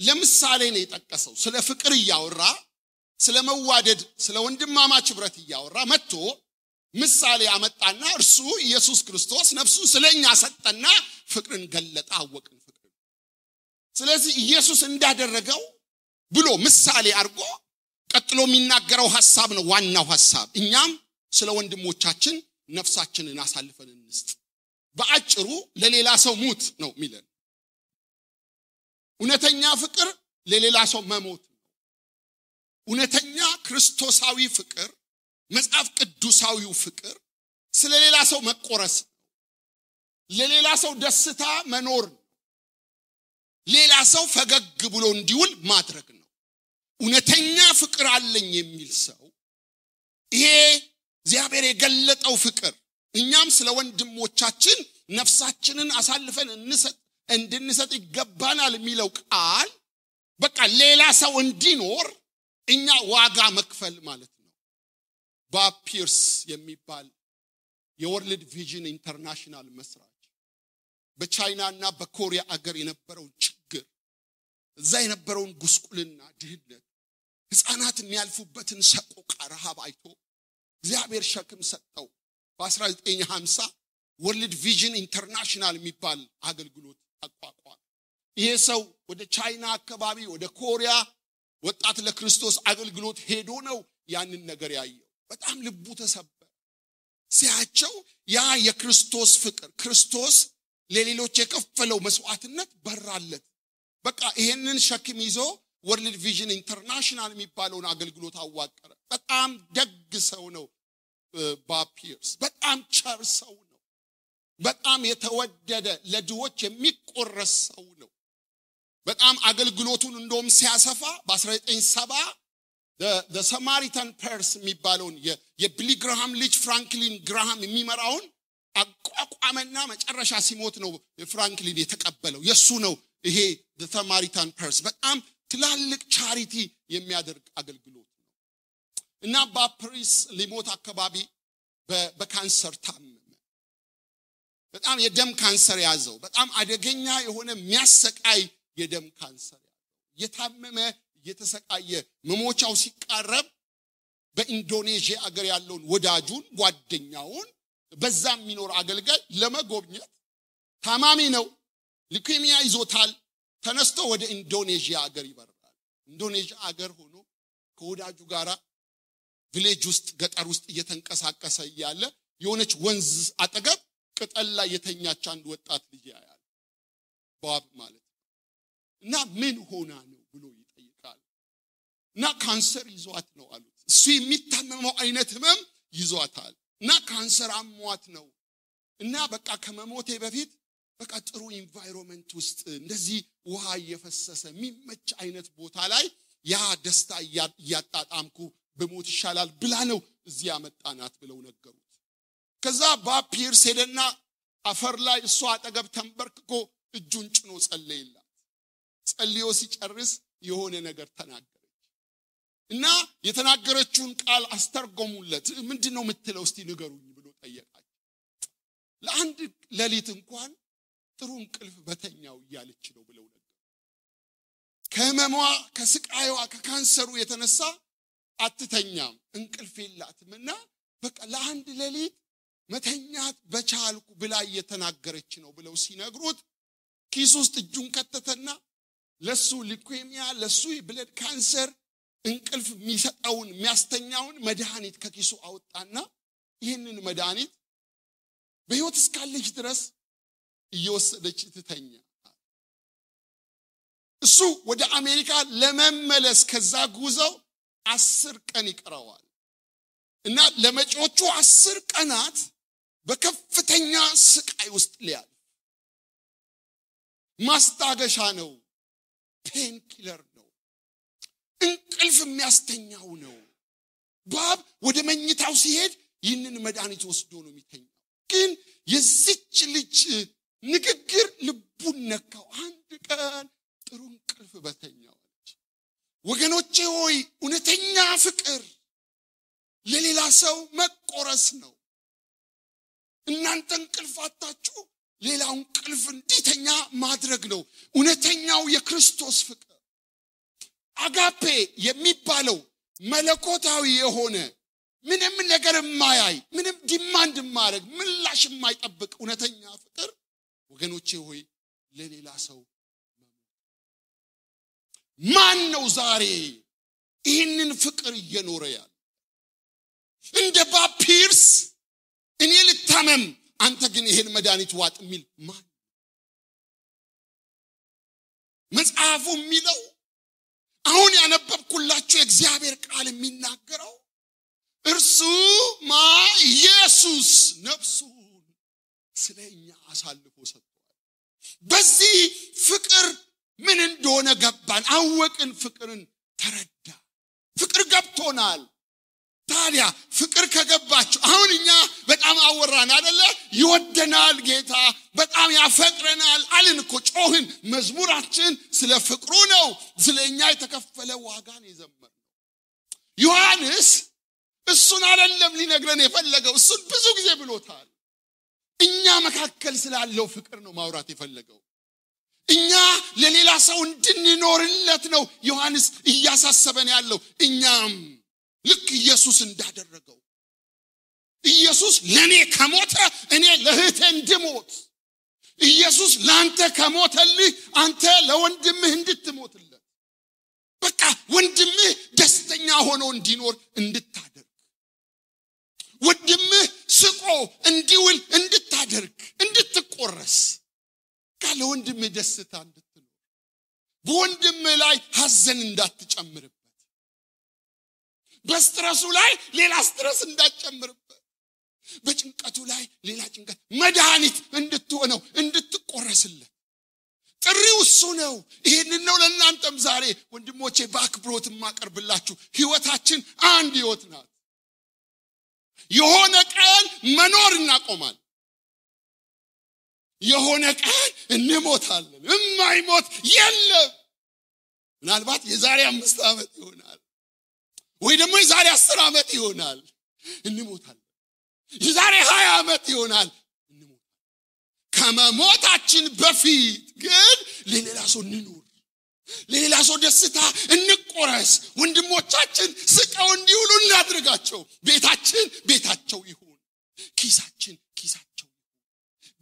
ለምሳሌ ነው የጠቀሰው። ስለ ፍቅር እያወራ ስለ መዋደድ ስለ ወንድማማች ህብረት እያወራ መጥቶ ምሳሌ አመጣና እርሱ ኢየሱስ ክርስቶስ ነፍሱን ስለኛ ሰጠና ፍቅርን ገለጠ፣ አወቅን ፍቅር። ስለዚህ ኢየሱስ እንዳደረገው ብሎ ምሳሌ አድርጎ ቀጥሎ የሚናገረው ሐሳብ ነው ዋናው ሐሳብ እኛም ስለ ወንድሞቻችን ነፍሳችንን አሳልፈን እንስጥ በአጭሩ ለሌላ ሰው ሙት ነው የሚለን እውነተኛ ፍቅር ለሌላ ሰው መሞት ነው እውነተኛ ክርስቶሳዊ ፍቅር መጽሐፍ ቅዱሳዊው ፍቅር ስለ ሌላ ሰው መቆረስ ለሌላ ሰው ደስታ መኖር ሌላ ሰው ፈገግ ብሎ እንዲውል ማድረግ ነው እውነተኛ ፍቅር አለኝ የሚል ሰው ይሄ እግዚአብሔር የገለጠው ፍቅር እኛም ስለ ወንድሞቻችን ነፍሳችንን አሳልፈን እንድንሰጥ ይገባናል የሚለው ቃል በቃ ሌላ ሰው እንዲኖር እኛ ዋጋ መክፈል ማለት ነው ቦብ ፒርስ የሚባል የወርልድ ቪዥን ኢንተርናሽናል መስራች በቻይናና በኮሪያ አገር የነበረው ችግር እዛ የነበረውን ጉስቁልና ድህነት ህፃናት የሚያልፉበትን ሰቆቃ ረሃብ አይቶ እግዚአብሔር ሸክም ሰጠው በ1950 ወርልድ ቪዥን ኢንተርናሽናል የሚባል አገልግሎት አቋቋመ ይሄ ሰው ወደ ቻይና አካባቢ ወደ ኮሪያ ወጣት ለክርስቶስ አገልግሎት ሄዶ ነው ያንን ነገር ያየው በጣም ልቡ ተሰበረ ሲያቸው ያ የክርስቶስ ፍቅር ክርስቶስ ለሌሎች የከፈለው መስዋዕትነት በራለት በቃ ይሄንን ሸክም ይዞ ወርልድ ቪዥን ኢንተርናሽናል የሚባለውን አገልግሎት አዋቀረ በጣም ደግ ሰው ነው ቦብ ፒርስ በጣም ቸር ሰው ነው በጣም የተወደደ ለድሆች የሚቆረስ ሰው ነው በጣም አገልግሎቱን እንደውም ሲያሰፋ በ1970 the Samaritan Purse የሚባለውን የቢሊ ግራሃም ልጅ ፍራንክሊን ግራሃም የሚመራውን አቋቋመና መጨረሻ ሲሞት ነው ፍራንክሊን የተቀበለው የሱ ነው ይሄ the Samaritan Purse በጣም ትላልቅ ቻሪቲ የሚያደርግ አገልግሎት ነው እና ቦብ ፒርስ ሊሞት አካባቢ በካንሰር ታመመ በጣም የደም ካንሰር ያዘው በጣም አደገኛ የሆነ የሚያሰቃይ የደም ካንሰር የታመመ የተሰቃየ መሞቻው ሲቃረብ በኢንዶኔዥያ አገር ያለውን ወዳጁን ጓደኛውን በዛም የሚኖር አገልጋይ ለመጎብኘት ታማሚ ነው ሊኩሚያ ይዞታል ተነስቶ ወደ ኢንዶኔዥያ አገር ይበራል ኢንዶኔዥያ አገር ሆኖ ከወዳጁ ጋራ ቪሌጅ ውስጥ ገጠር ውስጥ እየተንቀሳቀሰ ያለ የሆነች ወንዝ አጠገብ ቅጠል ላይ የተኛች አንድ ወጣት ልጅ ያያል ቦብ ማለት እና ምን ሆና ነው ብሎ ይጠይቃል እና ካንሰር ይዟት ነው አሉት እሱ የሚታመመው አይነት ህመም ይዟታል እና ካንሰር አሟት ነው እና በቃ ከመሞቴ በፊት በቃ ጥሩ ኢንቫይሮንመንት ውስጥ እንደዚህ ውሃ እየፈሰሰ የሚመች አይነት ቦታ ላይ ያ ደስታ ያጣጣምኩ በሞት ይሻላል ብላ ነው እዚህ ያመጣናት ብለው ነገሩት ከዛ ቦብ ፒርስ ሄደና አፈር ላይ እሷ አጠገብ ተንበርክኮ እጁን ጭኖ ጸለየላት ጸልዮ ሲጨርስ የሆነ ነገር ተናገረች እና የተናገረችውን ቃል አስተርጎሙለት ምንድነው የምትለው እስቲ ንገሩኝ ብሎ ጠየቃቸው ለአንድ ሌሊት እንኳን ጥሩ እንቅልፍ በተኛው እያለች ነው ብለው ነገር ከመሟ ከስቃይዋ ከካንሰሩ የተነሳ አትተኛም እንቅልፍ የላትምና በቃ ለአንድ ሌሊት መተኛት በቻልኩ ብላ እየተናገረች ነው ብለው ሲነግሩት ኪስ ውስጥ እጁን ከተተና ለሱ ሊኩሚያ ለሱ ብለድ ካንሰር እንቅልፍ የሚሰጠውን የሚያስተኛውን መድኃኒት ከኪሱ አወጣና ይህንን መድኃኒት በህይወት እስካለች ድረስ እየወሰደች ትተኛ እሱ ወደ አሜሪካ ለመመለስ ከዛ ጉዞው 10 ቀን ይቀረዋል እና ለመጪዎቹ 10 ቀናት በከፍተኛ ስቃይ ውስጥ ሊያልፍ ማስታገሻ ነው ፔን ኪለር ነው እንቅልፍ የሚያስተኛው ነው ቦብ ወደ መኝታው ሲሄድ ይህንን መድኃኒት ወስዶ ነው የሚተኛው ግን የዚች ልጅ ንግግር ልቡን ነካው አንድ ቀን ጥሩ እንቅልፍ በተኛው ወገኖቼ ሆይ እውነተኛ ፍቅር ለሌላ ሰው መቆረስ ነው እናንተ እንቅልፍ አጣችሁ ሌላው እንቅልፍ እንዲተኛ ማድረግ ነው እውነተኛው የክርስቶስ ፍቅር አጋፔ የሚባለው መለኮታዊ የሆነ ምንም ነገር የማያይ ምንም ዲማንድ የማያደርግ ምላሽ የማይጠብቅ እውነተኛ ፍቅር ወገኖቼ ሆይ ለሌላ ሰው ማን ነው ዛሬ ይህንን ፍቅር እየኖረ ያለ እንደ ባፒርስ እኔ ልታመም አንተ ግን ይሄን መድኃኒት ዋጥ የሚል ማን? መጽሐፉ የሚለው አሁን ያነበብኩላችሁ የእግዚአብሔር ቃል የሚናገረው እርሱ ኢየሱስ ነፍሱን ስለኛ አሳልፎ ሰጥቷል። በዚህ ፍቅር ምን እንደሆነ ገባን፣ አወቅን፣ ፍቅርን ተረዳ። ፍቅር ገብቶናል። ታዲያ ፍቅር ከገባችሁ አሁን እኛ በጣም አወራን አይደለ? ይወደናል ጌታ፣ በጣም ያፈቅረናል አልን እኮ ጮህን። መዝሙራችን ስለ ፍቅሩ ነው፣ ስለኛ የተከፈለ ዋጋን የዘመርነው። ዮሐንስ እሱን አይደለም ሊነግረን የፈለገው፣ እሱን ብዙ ጊዜ ብሎታል። እኛ መካከል ስላለው ፍቅር ነው ማውራት የፈለገው። እኛ ለሌላ ሰው እንድንኖርለት ነው ዮሐንስ እያሳሰበን ያለው። እኛም ልክ ኢየሱስ እንዳደረገው ኢየሱስ ለኔ ከሞተ እኔ ለእህቴ እንድሞት፣ ኢየሱስ ላንተ ከሞተልህ አንተ ለወንድምህ እንድትሞትለት፣ በቃ ወንድምህ ደስተኛ ሆኖ እንዲኖር እንድታደርግ፣ ወንድምህ ስቆ እንዲውል እንድታደርግ፣ እንድትቆረስ፣ ለወንድምህ ደስታ እንድትኖር፣ በወንድምህ ላይ ሐዘን እንዳትጨምርበት፣ በስትረሱ ላይ ሌላ ስትረስ እንዳትጨምርበት፣ በጭንቀቱ ላይ ሌላ ጭንቀት መድኃኒት እንድትሆነው እንድትቆረስለት ጥሪው እሱ ነው። ይሄንን ነው ለእናንተም ዛሬ ወንድሞቼ በአክብሮት ማቀርብላችሁ። ህይወታችን አንድ ህይወት ናት። የሆነ ቀን መኖር እናቆማል፣ የሆነ ቀን እንሞታለን። የማይሞት የለም። ምናልባት የዛሬ 5 ዓመት ይሆናል ወይ ደግሞ የዛሬ 10 ዓመት ይሆናል እንሞታለን። የዛሬ 20 ዓመት ይሆናል እንሞታለን። ከመሞታችን በፊት ግን ለሌላ ሰው እንኑር፣ ለሌላ ሰው ደስታ እንቆረስ። ወንድሞቻችን ስቀው እንዲውሉ እናድርጋቸው። ቤታችን ቤታቸው ይሁን፣ ኪሳችን ኪሳቸው ይሁን።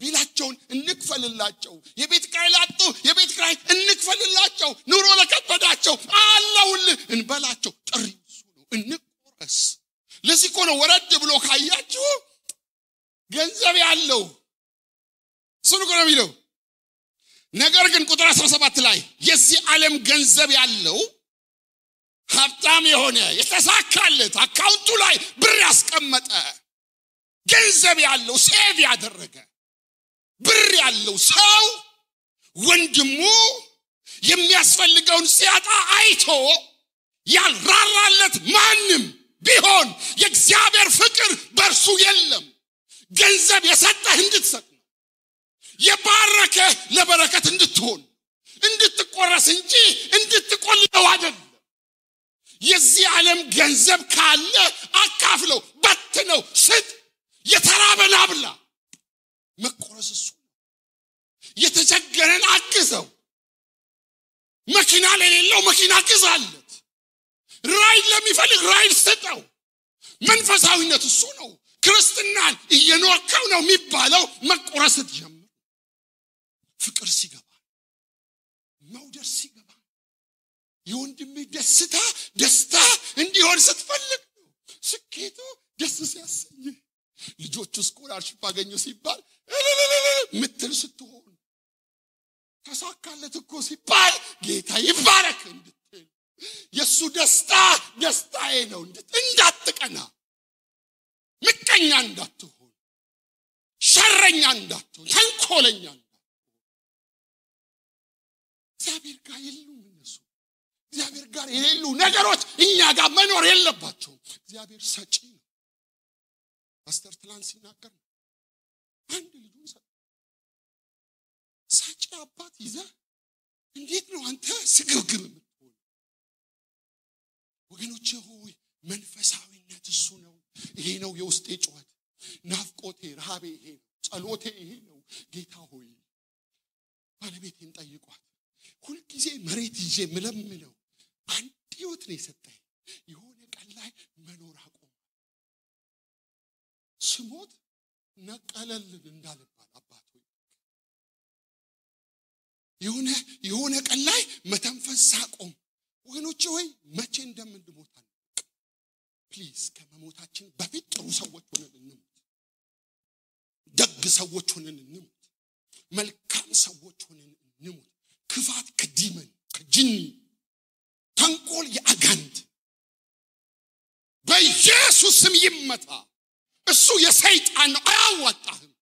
ቢላቸውን እንክፈልላቸው። የቤት ኪራይ ላጡ የቤት ኪራይ እንክፈልላቸው። ኑሮ ለከበዳቸው አለውልህ እንበላቸው። ጥሪው እሱ ነው፣ እንቆረስ። ለዚህ እኮ ነው ወረድ ብሎ ካያችሁ ገንዘብ ያለው እሱ ነው የሚለው። ነገር ግን ቁጥር 17 ላይ የዚህ ዓለም ገንዘብ ያለው ሀብታም የሆነ የተሳካለት አካውንቱ ላይ ብር ያስቀመጠ ገንዘብ ያለው ሴቭ ያደረገ ብር ያለው ሰው ወንድሙ የሚያስፈልገውን ሲያጣ አይቶ ያልራራለት ማንም ቢሆን የእግዚአብሔር ፍቅር በእርሱ የለም። ገንዘብ የሰጠህ እንድትሰጥ ነው፣ የባረከ ለበረከት እንድትሆን እንድትቆረስ እንጂ እንድትቆልለው አይደለም። የዚህ ዓለም ገንዘብ ካለ አካፍለው፣ በትነው፣ ስጥ፣ የተራበን አብላ። መቆረስ እሱ ነው። የተቸገረን አግዘው። መኪና ለሌለው መኪና ግዛለት። ራይድ ለሚፈልግ ራይድ ስጠው። መንፈሳዊነት እሱ ነው። ክርስትናን እየኖርከው ነው የሚባለው መቆረስ ጀምር። ፍቅር ሲገባ፣ መውደድ ሲገባ፣ የወንድምህ ደስታ እንዲሆን ስትፈልግ ነው። ስኬቱ ደስ ሲያሰኝ፣ ልጆቹ ስኮላርሺፕ አገኙ ሲባል ምትል ስትሆን፣ ተሳካለት እኮ ሲባል ጌታ ይባረክ እንድትል፣ የሱ ደስታ ደስታዬ ነው እንዳትቀና፣ ምቀኛ እንዳትሆን፣ ሸረኛ እንዳትሆን፣ ተንኮለኛ እንዳትሆን። እግዚአብሔር ጋር የሉም እነሱ። እግዚአብሔር ጋር የሌሉ ነገሮች እኛ ጋር መኖር የለባቸውም። እግዚአብሔር ሰጪ ነው። ፓስተር ትላንት ሲናገር አንድ ልጁን ሰጪ አባት ይዘህ እንዴት ነው አንተ ስግብግብ የምትሆን? ወገኖቼ ሆይ መንፈሳዊነት እሱ ነው። ይሄ ነው የውስጤ ጩኸት፣ ናፍቆቴ፣ ረሃቤ ይሄ ነው፣ ጸሎቴ ይሄ ነው። ጌታ ሆይ ባለቤቴን ጠይቋት። ሁልጊዜ መሬት ይዤ ምለምነው አንድ ህይወት ነው የሰጠኝ። የሆነ ቀን ላይ መኖር አቆም። ስሞት ነቀለልን እንዳልባል አባት ሆይ የሆነ ቀን ላይ መተንፈስ ሳቆም ወገኖቼ ሆይ መቼ እንደምንሞት ፕሊዝ ከመሞታችን በፊት ጥሩ ሰዎች ሆነን እንሞት ደግ ሰዎች ሆነን እንሞት መልካም ሰዎች ሆነን እንሞት ክፋት ከዲመን ከጅኒ ተንኮል የአጋንንት በኢየሱስ ስም ይመታ እሱ የሰይጣን ነው አያዋጣህም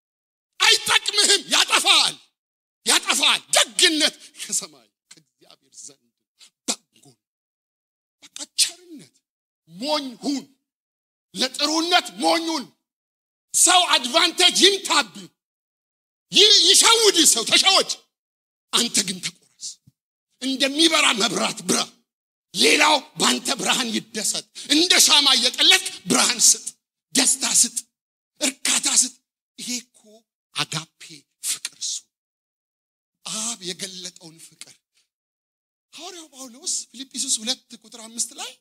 አይጠቅምህም ያጠፋል ደግነት ከሰማይ ከእግዚአብሔር ዘንድ በጎ በቃ ቸርነት ሞኝ ሁን ለጥሩነት ሞኙን ሰው አድቫንቴጅ ይምታብ ይሻውድ ሰው ተሻወድ አንተ ግን ተቆረስ እንደሚበራ መብራት ብራ ሌላው ባንተ ብርሃን ይደሰት እንደ ሻማ እየቀለጥክ ብርሃን ስጥ ደስታ ስጥ እርካታ ስጥ ይሄኮ አጋፔ ፍቅር እሱ አብ የገለጠውን ፍቅር ሐዋርያው ጳውሎስ ፊልጵስዩስ 2:5 ላይ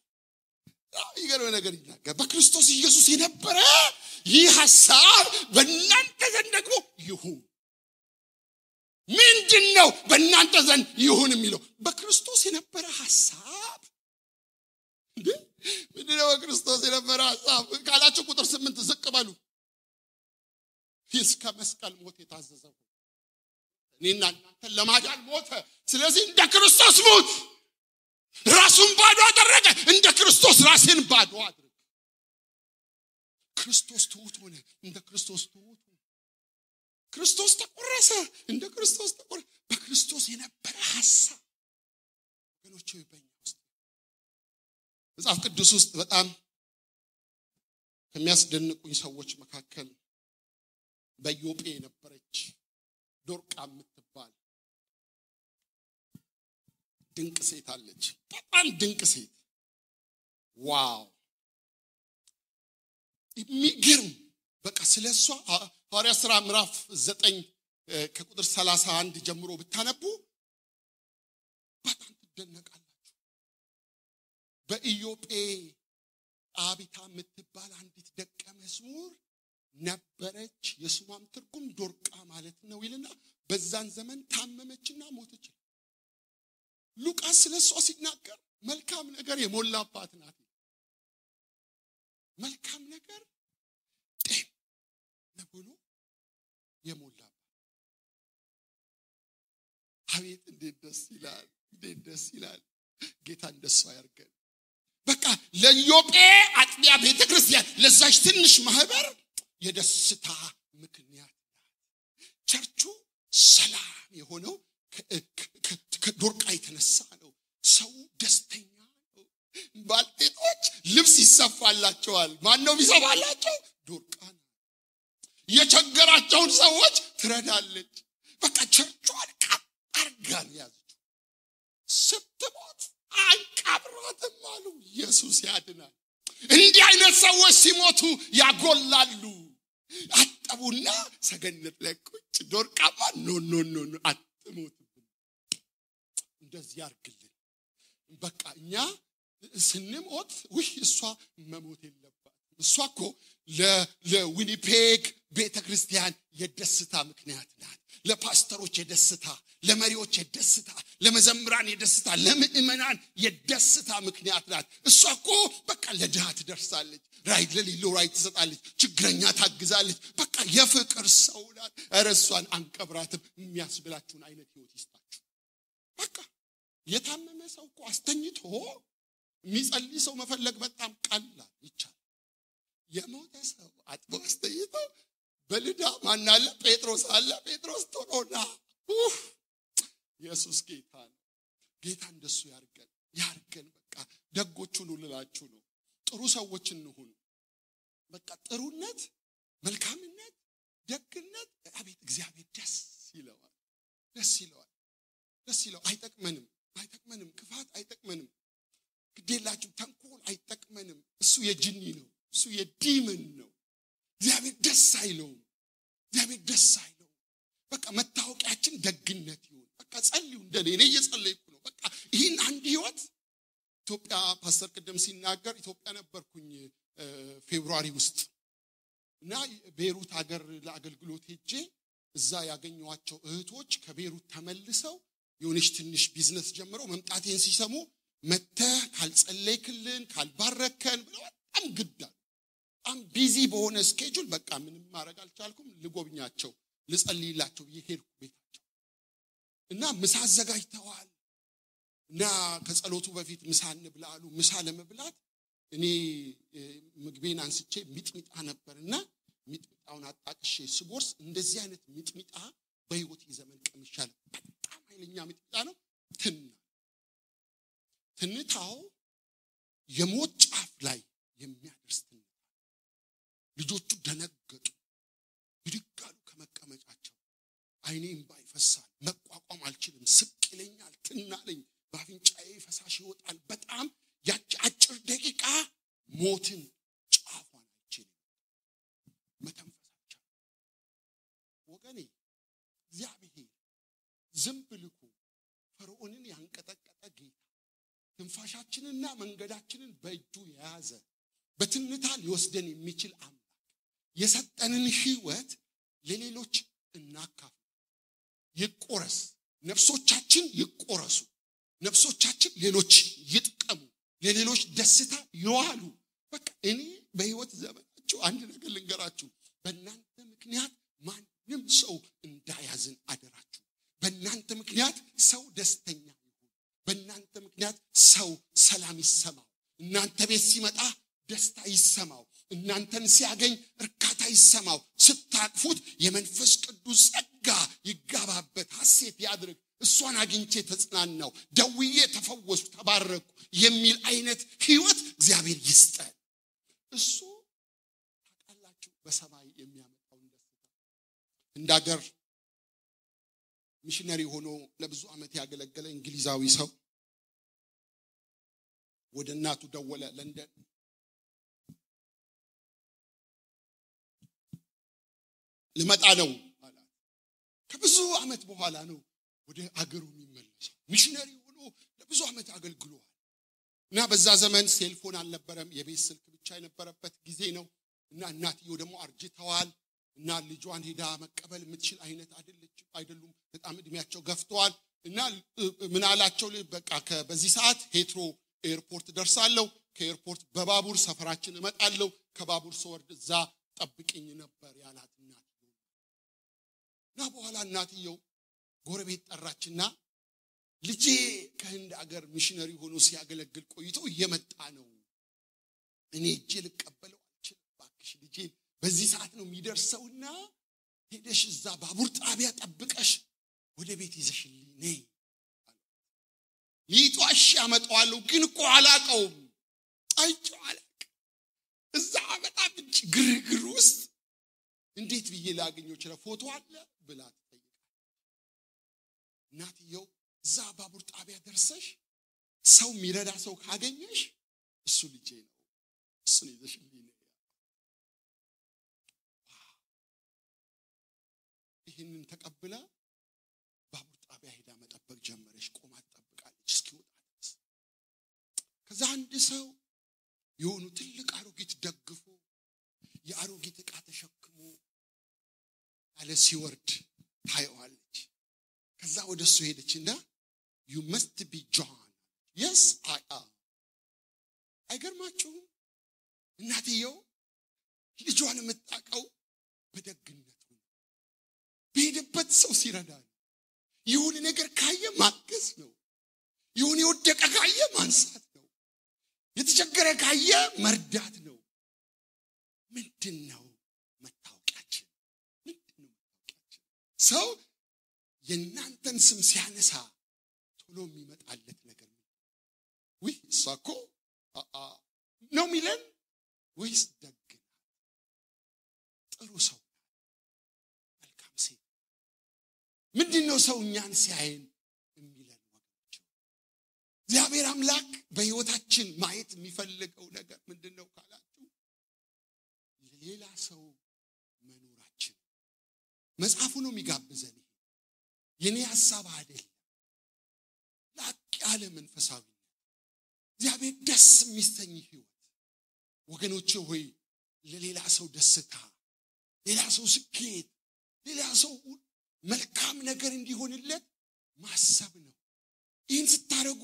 ይገርም ነገር ይናገራል በክርስቶስ ኢየሱስ የነበረ ይህ ሐሳብ በእናንተ ዘንድ ደግሞ ይሁን ምንድነው በእናንተ ዘንድ ይሁን የሚለው በክርስቶስ የነበረ ሐሳብ ምንድነው በክርስቶስ የነበረ ሐሳብ ካላችሁ ቁጥር 8 ዝቅ በሉ እስከ መስቀል ሞት የታዘዘው እኔና እናንተ ለማዳን ሞተ ስለዚህ እንደ ክርስቶስ ሞት ራሱን ባዶ አደረገ እንደ ክርስቶስ ራስን ባዶ አድርግ ክርስቶስ ትሁት ሆነ እንደ ክርስቶስ ትሁት ክርስቶስ ተቆረሰ እንደ ክርስቶስ ተቆረሰ በክርስቶስ የነበረ ሐሳብ ወገኖቼ በእኛ ውስጥ መጽሐፍ ቅዱስ ውስጥ በጣም ከሚያስደንቁኝ ሰዎች መካከል በኢዮጴ የነበረች ዶርቃ የምትባል ድንቅ ሴት አለች በጣም ድንቅ ሴት ዋው የሚገርም በቃ ስለሷ ሐዋርያት ሥራ ምዕራፍ 9 ከቁጥር 31 ጀምሮ ብታነቡ በጣም ትደነቃላችሁ በኢዮጴ አቢታ የምትባል አንዲት ደቀ መዝሙር ነበረች የስሟም ትርጉም ዶርቃ ማለት ነው ይልና በዛን ዘመን ታመመችና ሞተች ሉቃስ ስለሷ ሲናገር መልካም ነገር የሞላባት ናት መልካም ነገር ነብሎ የሞላባት አቤት እንዴት ደስ ይላል ጌታ እንደሷ ያርገን በቃ ለኢዮጴ አጥቢያ ቤተክርስቲያን ለዛች ትንሽ ማህበር የደስታ ምክንያት ቸርቹ ሰላም የሆነው ከዶርቃ የተነሳ ነው ሰው ደስተኛ ነው ባልቴቶች ልብስ ይሰፋላቸዋል ማን ነው ይሰፋላቸው ዶርቃ የቸገራቸውን ሰዎች ትረዳለች በቃ ቸርቹን አርጋን ያዘች ስትሞት አንቀብራትም አሉ ኢየሱስ ያድናል እንዲህ አይነት ሰዎች ሲሞቱ ያጎላሉ አጠቡና ሰገነት ላይ ቁጭ ዶርቃማ ኖ አትሞት እንደዚህ ያርግልን በቃ እኛ ስንሞት እሷ መሞት የለባት እሷ እኮ ለዊኒፔግ ቤተክርስቲያን የደስታ ምክንያት ናት ለፓስተሮች የደስታ ለመሪዎች የደስታ ለመዘምራን የደስታ ለምእመናን የደስታ ምክንያት ናት እሷ እኮ በቃ ለድሃ ትደርሳለች ራይ ለሌለው ራይ ትሰጣለች ችግረኛ ታግዛለች በቃ የፍቅር ሰው ናት እርሷን አንቀብራትም የሚያስብላችሁን አይነት ህይወት ይስጣችሁ በቃ የታመመ ሰው እኮ አስተኝቶ የሚጸልይ ሰው መፈለግ በጣም ቀላል ይቻላል የሞተ ሰው አጥቦ አስተኝቶ በልዳ ማን አለ ጴጥሮስ አለ ጴጥሮስ ቶሎና ኢየሱስ ጌታ ነው ጌታ እንደሱ ያርገን በቃ ደጎቹን ልላችሁ ነው ጥሩ ሰዎች እንሁን በቃ ጥሩነት መልካምነት ደግነት አቤት እግዚአብሔር ደስ ይለዋል አይጠቅመንም ክፋት አይጠቅመንም ግዴላችሁ ተንኮል አይጠቅመንም እሱ የጅኒ ነው እሱ የዲመን ነው እግዚአብሔር ደስ አይለውም በቃ መታወቂያችን ደግነት ይሁን በቃ ጸልዩ እንደኔ እየጸለይኩ ነው በቃ ይሄን አንድ ህይወት ኢትዮጵያ ፓስተር ቀደም ሲናገር ኢትዮጵያ ነበርኩኝ ፌብሩዋሪ ውስጥ እና ቤሩት ሀገር ለአገልግሎት ሄጄ እዛ ያገኘዋቸው እህቶች ከቤሩት ተመልሰው የሆነች ትንሽ ቢዝነስ ጀምረው መምጣቴን ሲሰሙ መተህ ካልጸለይክልን ካልባረከን ብለው በጣም ግዳል በጣም ቢዚ በሆነ ስኬጁል በቃ ምንም ማድረግ አልቻልኩም ልጎብኛቸው ልጸልይላቸው ይሄድኩ ቤታቸው እና ምሳ አዘጋጅተዋል እና ከጸሎቱ በፊት ምሳ እንብላሉ ምሳ ለመብላት እኔ ምግቤን አንስቼ ሚጥሚጣ ነበርና ሚጥሚጣውን አጣቅሼ ስጎርስ እንደዚህ አይነት ሚጥሚጣ በህይወት ዘመን ቀምሻል በጣም ኃይለኛ ሚጥሚጣ ነው ትንታው የሞት ጫፍ ላይ የሚያደርስ ትንታ ልጆቹ ደነገጡ ይድጋሉ ከመቀመጫቸው አይኔም ባይፈሳል መቋቋም አልችልም ስቅለኛል ትናለኝ ባፍንጫዬ ፈሳሽ ይወጣል በጣም ያቺ አጭር ደቂቃ ሞትን ጫፏን አይችልም መተንፈሳቸው ወገኔ እግዚአብሔር ዝም ብልኩ ፈርዖንን ያንቀጠቀጠ ጌታ ትንፋሻችንና መንገዳችንን በእጁ የያዘ በትንታ ሊወስደን የሚችል አምላክ የሰጠንን ህይወት ለሌሎች እናካፍ ይቆረስ ነፍሶቻችን ይቆረሱ ነፍሶቻችን ሌሎች ይጥቀሙ ለሌሎች ደስታ ይዋሉ በቃ እኔ በህይወት ዘመናችሁ አንድ ነገር ልንገራችሁ በእናንተ ምክንያት ማንም ሰው እንዳያዝን አደራችሁ በእናንተ ምክንያት ሰው ደስተኛ ይሁን በእናንተ ምክንያት ሰው ሰላም ይሰማው እናንተ ቤት ሲመጣ ደስታ ይሰማው እናንተን ሲያገኝ እርካታ ይሰማው ስታቅፉት የመንፈስ ቅዱስ ጸጋ ይጋባበት ሐሴት ያድርግ እሷን አግኝቼ ተጽናናው ደውዬ ተፈወስኩ ተባረኩ የሚል አይነት ህይወት እግዚአብሔር ይስጠን እሱ ታቃላችሁ በሰማይ የሚያመጣው ደስታ እንዳገር ሚሽነሪ ሆኖ ለብዙ አመት ያገለገለ እንግሊዛዊ ሰው ወደ እናቱ ደወለ ለንደን ልመጣ ነው አለ ከብዙ አመት በኋላ ነው ወደ አገሩ የሚመለሰው ሚሽነሪ ሆኖ ለብዙ አመት አገልግሏል እና በዛ ዘመን ሴልፎን አልነበረም የቤት ስልክ ብቻ የነበረበት ጊዜ ነው እና እናትየው ደግሞ አርጅተዋል እና ልጇን ሄዳ መቀበል የምትችል አይነት አይደሉም በጣም እድሜያቸው ገፍተዋል እና ምን አላቸው በቃ በዚህ ሰዓት ሄትሮ ኤርፖርት ደርሳለሁ ከኤርፖርት በባቡር ሰፈራችን እመጣለሁ ከባቡር ስወርድ እዛ ጠብቂኝ ነበር ያላት እናትየው እና በኋላ እናትየው ጎረቤት ጠራችና ልጄ ከህንድ አገር ሚሽነሪ ሆኖ ሲያገለግል ቆይቶ እየመጣ ነው እኔ እጄ ልቀበለው አልችልም ባክሽ ልጄ በዚህ ሰዓት ነው የሚደርሰውና ሄደሽ እዛ ባቡር ጣቢያ ጠብቀሽ ወደ ቤት ይዘሽልኝ ነይ ሊጧሽ ያመጣዋለሁ ግን እኮ አላቀውም አይጫለቅ እዛ በጣም ግርግር ውስጥ እንዴት ብዬ ላገኘው ይችላል ፎቶ አለ ብላ ትጠይቃለች እናትየው እዛ ባቡር ጣቢያ ደርሰሽ ሰው ሚረዳ ሰው ካገኘሽ እሱ ልጄ ነው እሱ ይዘሽልኝ ነይ ይህንን ተቀብላ ባቡር ጣቢያ ሄዳ መጠበቅ ጀመረች ቆማ ተጠብቃለች እስኪወጣ ድረስ ከዛ አንድ ሰው የሆኑ ትልቅ አሮጊት ደግፎ የአሮጊት ዕቃ ተሸክሞ ያለ ሲወርድ ታየዋለች ከዛ ወደሱ ሄደችና you must be John yes I am አይገርማችሁም እናትየው ልጇን የምታቀው በደግነቱ በሄደበት ሰው ሲረዳ ይሁን ነገር ካየ ማገዝ ነው ይሁን የወደቀ ካየ ማንሳት ነው የተቸገረ ካየ መርዳት ነው ምንድነው መታወቂያችን ሰው የናንተን ስም ሲያነሳ ቶሎ የሚመጣለት ነገር ወይ ሳኮ ነው ሚለን ወይስ ደግ ጥሩ ሰው መልካም ሴት ምንድነው ሰው እኛን ሲያየን የሚለን ወገኖች እግዚአብሔር አምላክ በህይወታችን ማየት የሚፈልገው ነገር ምንድነው ካላችሁ ለሌላ ሰው መኖራችን መጽሐፉ ነው የሚጋብዘን የኔ ሐሳብ አይደል ላቅ ያለ መንፈሳዊ እግዚአብሔር ደስ የሚሰኝ ህይወት ወገኖቼ ሆይ ለሌላ ሰው ደስታ ሌላ ሰው ስኬት ሌላ ሰው መልካም ነገር እንዲሆንለት ማሰብ ነው ይህን ስታረጉ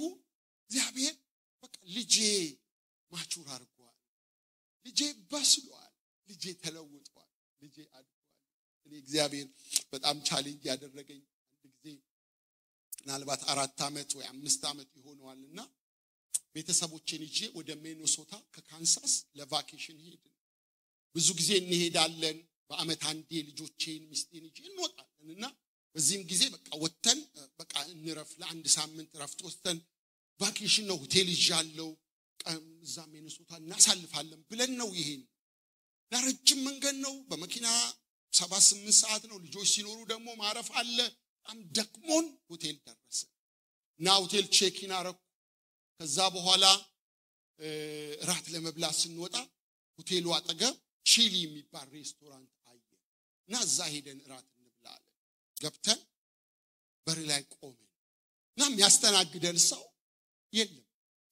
እግዚአብሔር በቃ ልጄ ማቹር አድርጓል፣ ልጄ በስሏል፣ ልጄ ተለውጧል፣ ልጄ አድጓል። እኔ እግዚአብሔር በጣም ቻሌንጅ ያደረገኝ አንድ ጊዜ ምናልባት 4 ዓመት ወይ 5 ዓመት ይሆነዋልና ቤተሰቦቼን ይዤ ወደ ሚኔሶታ ከካንሳስ ለቫኬሽን ሄድን። ብዙ ጊዜ እንሄዳለን። በአመት አንዴ ልጆቼን ሚስቴን ይዤ እንወጣለንና በዚህም ጊዜ በቃ ወተን በቃ እንረፍ ለአንድ ሳምንት ረፍት ወስተን ቫኬሽን ነው ሆቴል ይዣለው እዛ ሚኔሶታ እናሳልፋለን ብለን ነው ይሄን ለረጅም መንገድ ነው። በመኪና 7-8 ሰዓት ነው። ልጆች ሲኖሩ ደግሞ ማረፍ አለ። በጣም ደክሞን ሆቴል ደረሰ እና ሆቴል ቼክ-ኢን አረኩ። ከዛ በኋላ ራት ለመብላት ስንወጣ ሆቴሉ አጠገብ ቺሊ የሚባል ሬስቶራንት አየን እና እዛ ሄደን ራት እንብላለን። ገብተን በር ላይ ቆመን እና የሚያስተናግደን ሰው የለም።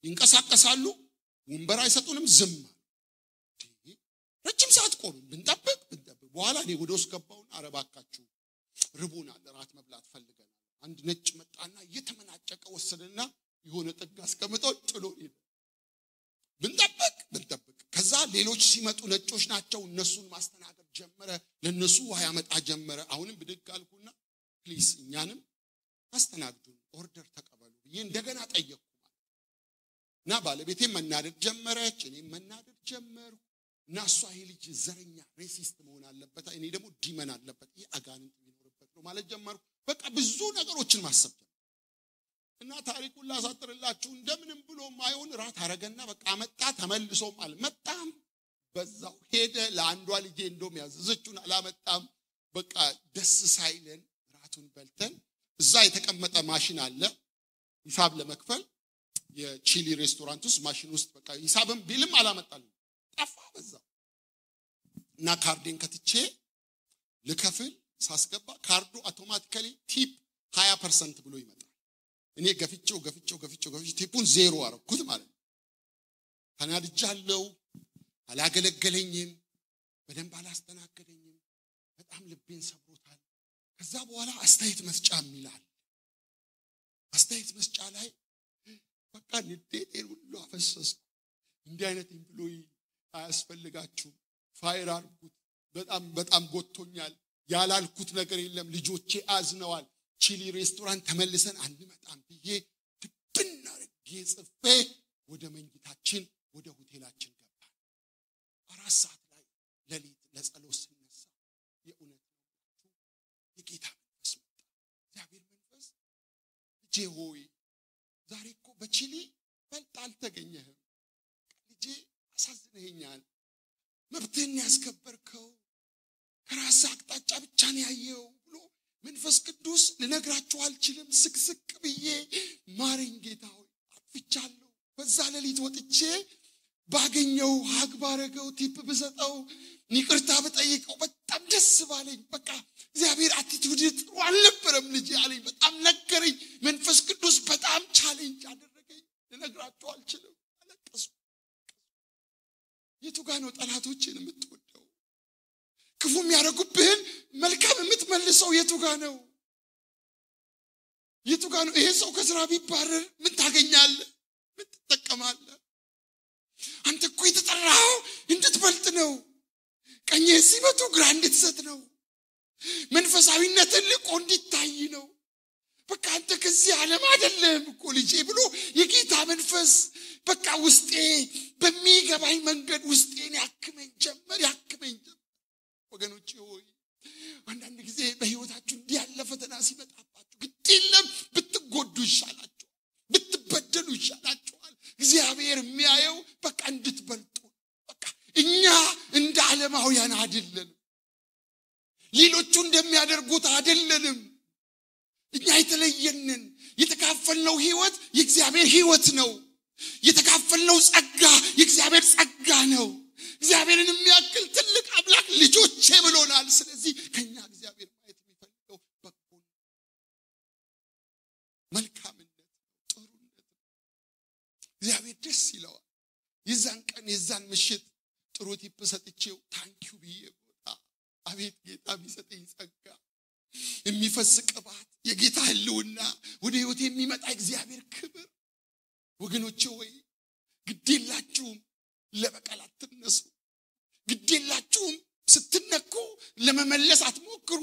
ይንቀሳቀሳሉ፣ ወንበር አይሰጡንም፣ ዝም አሉ። ረጅም ሰዓት ቆመን ብንጠብቅ በኋላ እኔ ወደ ውስጥ ገባሁና አረባካችሁ ርቦናል፣ ራት መብላት ፈልገናል። አንድ ነጭ መጣና እየተመናጨቀ ወሰደና የሆነ ጥግ አስቀምጠው ጥሎ ሄደ። ብንጠብቅ ከዛ ሌሎች ሲመጡ ነጮች ናቸው፣ እነሱን ማስተናገድ ጀመረ። ለነሱ ውሃ ያመጣ ጀመረ። አሁንም ብድግ አልኩና ፕሊስ እኛንም አስተናግዱን፣ ኦርደር ተቀበሉ ብዬ እንደገና ጠየቅኩ እና ባለቤቴም መናደድ ጀመረች፣ እኔም መናደድ ጀመርኩ። እና እሷ ይሄ ልጅ ዘረኛ ሬሲስት መሆን አለበት፣ እኔ ደግሞ ዲመን አለበት፣ ይሄ አጋንንት የሚኖርበት ነው ማለት ጀመርኩ። በቃ ብዙ ነገሮችን ማሰብ እና ታሪኩን ላሳጥርላችሁ እንደምንም ብሎ ማይሆን ራት አረገና በቃ መጣ። ተመልሶም አልመጣም፣ በዛው ሄደ። ለአንዷ ልጄ እንደውም ያዘዘችውን አላመጣም። በቃ ደስ ሳይለን ራቱን በልተን እዛ የተቀመጠ ማሽን አለ ሂሳብ ለመክፈል የቺሊ ሬስቶራንት ውስጥ ማሽን ውስጥ በቃ ሂሳብም ቢልም አላመጣልኝ፣ ጠፋ በዛው። እና ካርዴን ከትቼ ልከፍል ሳስገባ ካርዱ አውቶማቲካሊ ቲፕ 20% ብሎ ይመጣል። እኔ ገፍቼው ቲፑን 0 አረኩት ማለት ነው። ተናድጃለሁ። አላገለገለኝም፣ በደንብ አላስተናገደኝም። በጣም ልቤን ሰብሮታል። ከዛ በኋላ አስተያየት መስጫ ይላል። አስተያየት መስጫ ላይ በቃ ንዴቴን ሁሉ አፈሰስኩ። እንዲህ አይነት ኤምፕሎይ አያስፈልጋችሁም፣ ፋይር አድርጉት፣ በጣም ጎቶኛል፣ ያላልኩት ነገር የለም፣ ልጆቼ አዝነዋል፣ ቺሊ ሬስቶራንት ተመልሰን አንመጣም ብዬ ድብና አድርጌ ጽፌ ወደ መኝታችን ወደ ሆቴላችን ገባን። 4 ሰዓት ላይ ሌሊት ለጸሎት ስነሳ የእውነት ነው የጌታ መንፈስ መጣ። እግዚአብሔር መንፈስ ልጄ ሆይ ዛሬ እኮ በቺሊ በልጥ አልተገኘህም፣ ልጄ አሳዝነኸኛል፣ መብትህን ያስከበርከው ከራስ አቅጣጫ ብቻ ነው ያየው ብሎ መንፈስ ቅዱስ ልነግራችሁ አልችልም። ስቅስቅ ብዬ ማረኝ ጌታ ሆይ አጥፍቻለሁ። በዛ ሌሊት ወጥቼ ባገኘው ሀግ ባረገው ቲፕ ብሰጠው ይቅርታ ብጠይቀው በጣም ደስ ባለኝ። በቃ እግዚአብሔር አቲቲዩድ ጥሩ አልነበረም ልጄ አለኝ። በጣም ነገረኝ። መንፈስ ቅዱስ በጣም ቻሌንጅ አደረገኝ። ልነግራችሁ አልችልም። አለቀስኩ። የቱ ጋር ነው ጠላቶችን የምትወደው? ክፉ የሚያደርጉብህን መልካም የምትመልሰው የቱ ጋር ነው? የቱ ጋር ነው? ይሄ ሰው ከስራ ቢባረር ምን ታገኛለህ? ምን ትጠቀማለህ? አንተ እኮ የተጠራኸው እንድትበልጥ ነው። ቀኝህን ሲመቱ ግራ እንድትሰጥ ነው። መንፈሳዊነትን ልቆ እንዲታይ ነው። በቃ አንተ ከዚህ ዓለም አይደለም እኮ ልጄ ብሎ የጌታ መንፈስ በቃ ውስጤ በሚገባኝ መንገድ ውስጤን ያክመኝ ጀመር። ወገኖቼ ሆይ አንዳንድ ጊዜ በህይወታችሁ እንዲህ ያለ ፈተና ሲመጣባችሁ ግድ የለም ብትጎዱ ይሻላችኋል፣ ብትበደሉ ይሻላችኋል። እግዚአብሔር የሚያየው በቃ እንድትበልጡ። በቃ እኛ እንደ ዓለማውያን አይደለንም፣ ሌሎቹ እንደሚያደርጉት አይደለንም። እኛ የተለየንን። የተካፈልነው ህይወት የእግዚአብሔር ህይወት ነው። የተካፈልነው ጸጋ የእግዚአብሔር ጸጋ ነው። እግዚአብሔርን የሚያክል ትልቅ አምላክ ልጆቼ ብሎናል። ስለዚህ ከኛ እግዚአብሔር ማየት የሚፈልገው በጎነት፣ መልካምነት፣ ጥሩነት። እግዚአብሔር ደስ ይለዋል። የዛን ቀን የዛን ምሽት ጥሩ ቲፕ ሰጥቼው ታንኪዩ ብዬ ወጣ። አቤት ጌታ ቢሰጠኝ ጸጋ፣ የሚፈስ ቅባት፣ የጌታ ህልውና፣ ወደ ህይወት የሚመጣ እግዚአብሔር ክብር። ወገኖቼ ወይ ግዴላችሁም ለበቀል አትነሱ ግዴላችሁም ስትነኩ ለመመለስ አትሞክሩ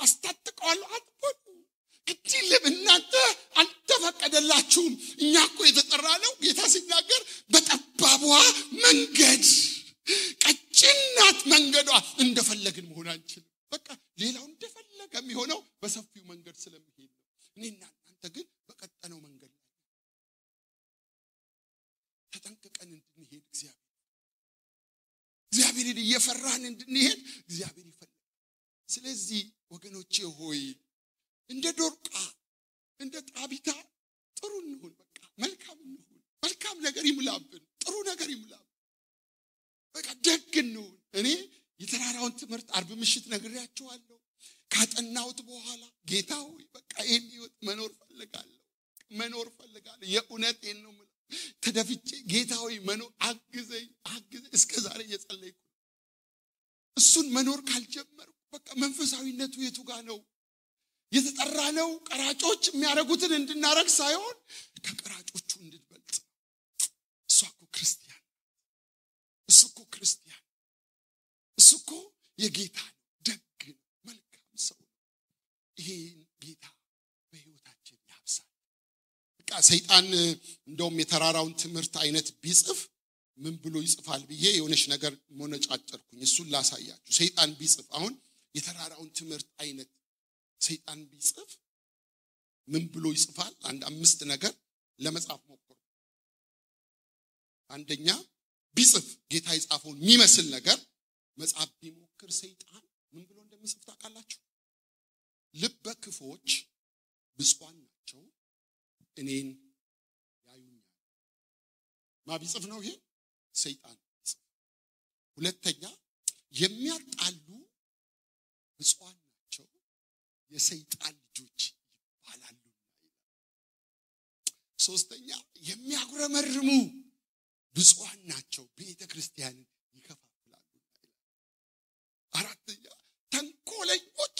አስታጥቀዋለሁ አትበሉ ግዴለም እናንተ አልተፈቀደላችሁም እኛኮ የተጠራነው ጌታ ሲናገር በጠባቧ መንገድ ቀጭናት መንገዷ እንደፈለግን መሆን አንችልም በቃ ሌላው እንደፈለገ የሚሆነው በሰፊው መንገድ ስለሚሄድ ነው እኔና እናንተ ግን በቀጠነው መንገድ ተጠንቅቀን እንድንሄድ እግዚአብሔርን እየፈራን እንድንሄድ እግዚአብሔር ይፈልጋል ስለዚህ ወገኖቼ ሆይ እንደ ዶርቃ እንደ ጣቢታ ጥሩ እንሁን በቃ መልካም እንሁን መልካም ነገር ይሙላብን ጥሩ ነገር ይሙላብን በቃ ደግ እንሁን እኔ የተራራውን ትምህርት አርብ ምሽት ነግሬያችኋለሁ ካጠናሁት በኋላ ጌታ ሆይ በቃ ይሄን ህይወት መኖር ፈልጋለሁ የእውነቴን ነው ተደፍቼ ጌታ ሆይ መኖር አግዘኝ እስከ ዛሬ እየጸለይኩ እሱን መኖር ካልጀመርኩ በቃ መንፈሳዊነቱ የቱ ጋር ነው የተጠራነው ቀራጮች የሚያረጉትን እንድናረግ ሳይሆን ከቀራጮቹ እንድንበልጥ እሱ እኮ የጌታ ደግ መልካም ሰው ይሄን ጌታ በህይወታችን ያብሳል በቃ ሰይጣን እንደውም የተራራውን ትምህርት አይነት ቢጽፍ ምን ብሎ ይጽፋል ብዬ የሆነች ነገር ሞነጫጨርኩኝ እሱን ላሳያችሁ ሰይጣን ቢጽፍ አሁን የተራራውን ትምህርት አይነት ሰይጣን ቢጽፍ ምን ብሎ ይጽፋል አንድ 5 ነገር ለመጻፍ ሞክሩ አንደኛ ቢጽፍ ጌታ ይጻፈውን የሚመስል ነገር መጻፍ ቢሞክር ሰይጣን ምን ብሎ እንደሚጽፍ ታውቃላችሁ ልበ ክፎች ብፁዓን ናቸው እኔን ያዩኛል ማቢጽፍ ነው ይሄ ሰይጣን ሁለተኛ የሚያጣሉ ብፁዓን ናቸው የሰይጣን ልጆች ይባላሉ ሶስተኛ የሚያጉረመርሙ ብፁዓን ናቸው ቤተክርስቲያንን ይከፋፍላሉ አራተኛ ተንኮለኞች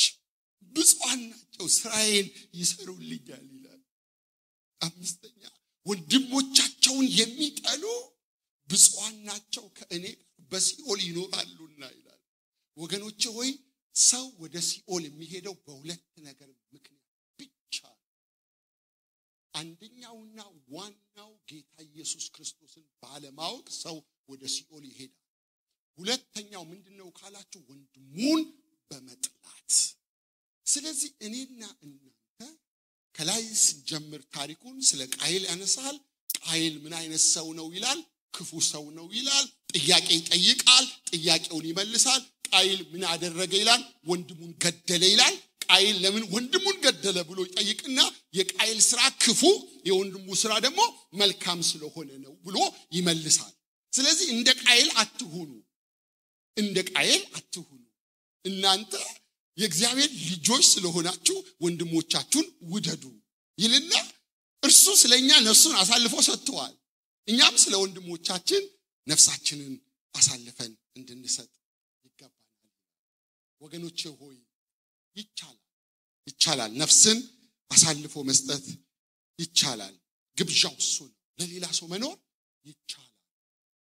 ብፁዓን ናቸው እስራኤል ይሰሩልኛል ይላል አምስተኛ ወንድሞቻቸውን የሚጠሉ ብፁዓን ናቸው ከእኔ በሲኦል ይኖራሉና ይላል ወገኖቼ ሆይ ሰው ወደ ሲኦል የሚሄደው በሁለት ነገር ምክንያት ብቻ አንደኛውና ዋናው ጌታ ኢየሱስ ክርስቶስን ባለማወቅ ሰው ወደ ሲኦል ይሄዳል ሁለተኛው ምንድነው ካላችሁ ወንድሙን በመጥላት ስለዚህ እኔና እናንተ ከላይ ስንጀምር ታሪኩን ስለ ቃየል ያነሳል ቃየል ምን አይነት ሰው ነው ይላል ክፉ ሰው ነው ይላል ጥያቄ ይጠይቃል ጥያቄውን ይመልሳል ቃየል ምን አደረገ ይላል ወንድሙን ገደለ ይላል ቃየል ለምን ወንድሙን ገደለ ብሎ ይጠይቅና የቃየል ስራ ክፉ የወንድሙ ስራ ደግሞ መልካም ስለሆነ ነው ብሎ ይመልሳል ስለዚህ እንደ ቃየል አትሁኑ እናንተ የእግዚአብሔር ልጆች ስለሆናችሁ ወንድሞቻችሁን ውደዱ ይልና እርሱ ስለኛ ነፍሱን አሳልፎ ሰጥቷል እኛም ስለ ወንድሞቻችን ነፍሳችንን አሳልፈን እንድንሰጥ ይገባናል ወገኖቼ ሆይ ይቻላል ነፍስን አሳልፎ መስጠት ይቻላል ግብዣው እሱ ነው ለሌላ ሰው መኖር ይቻላል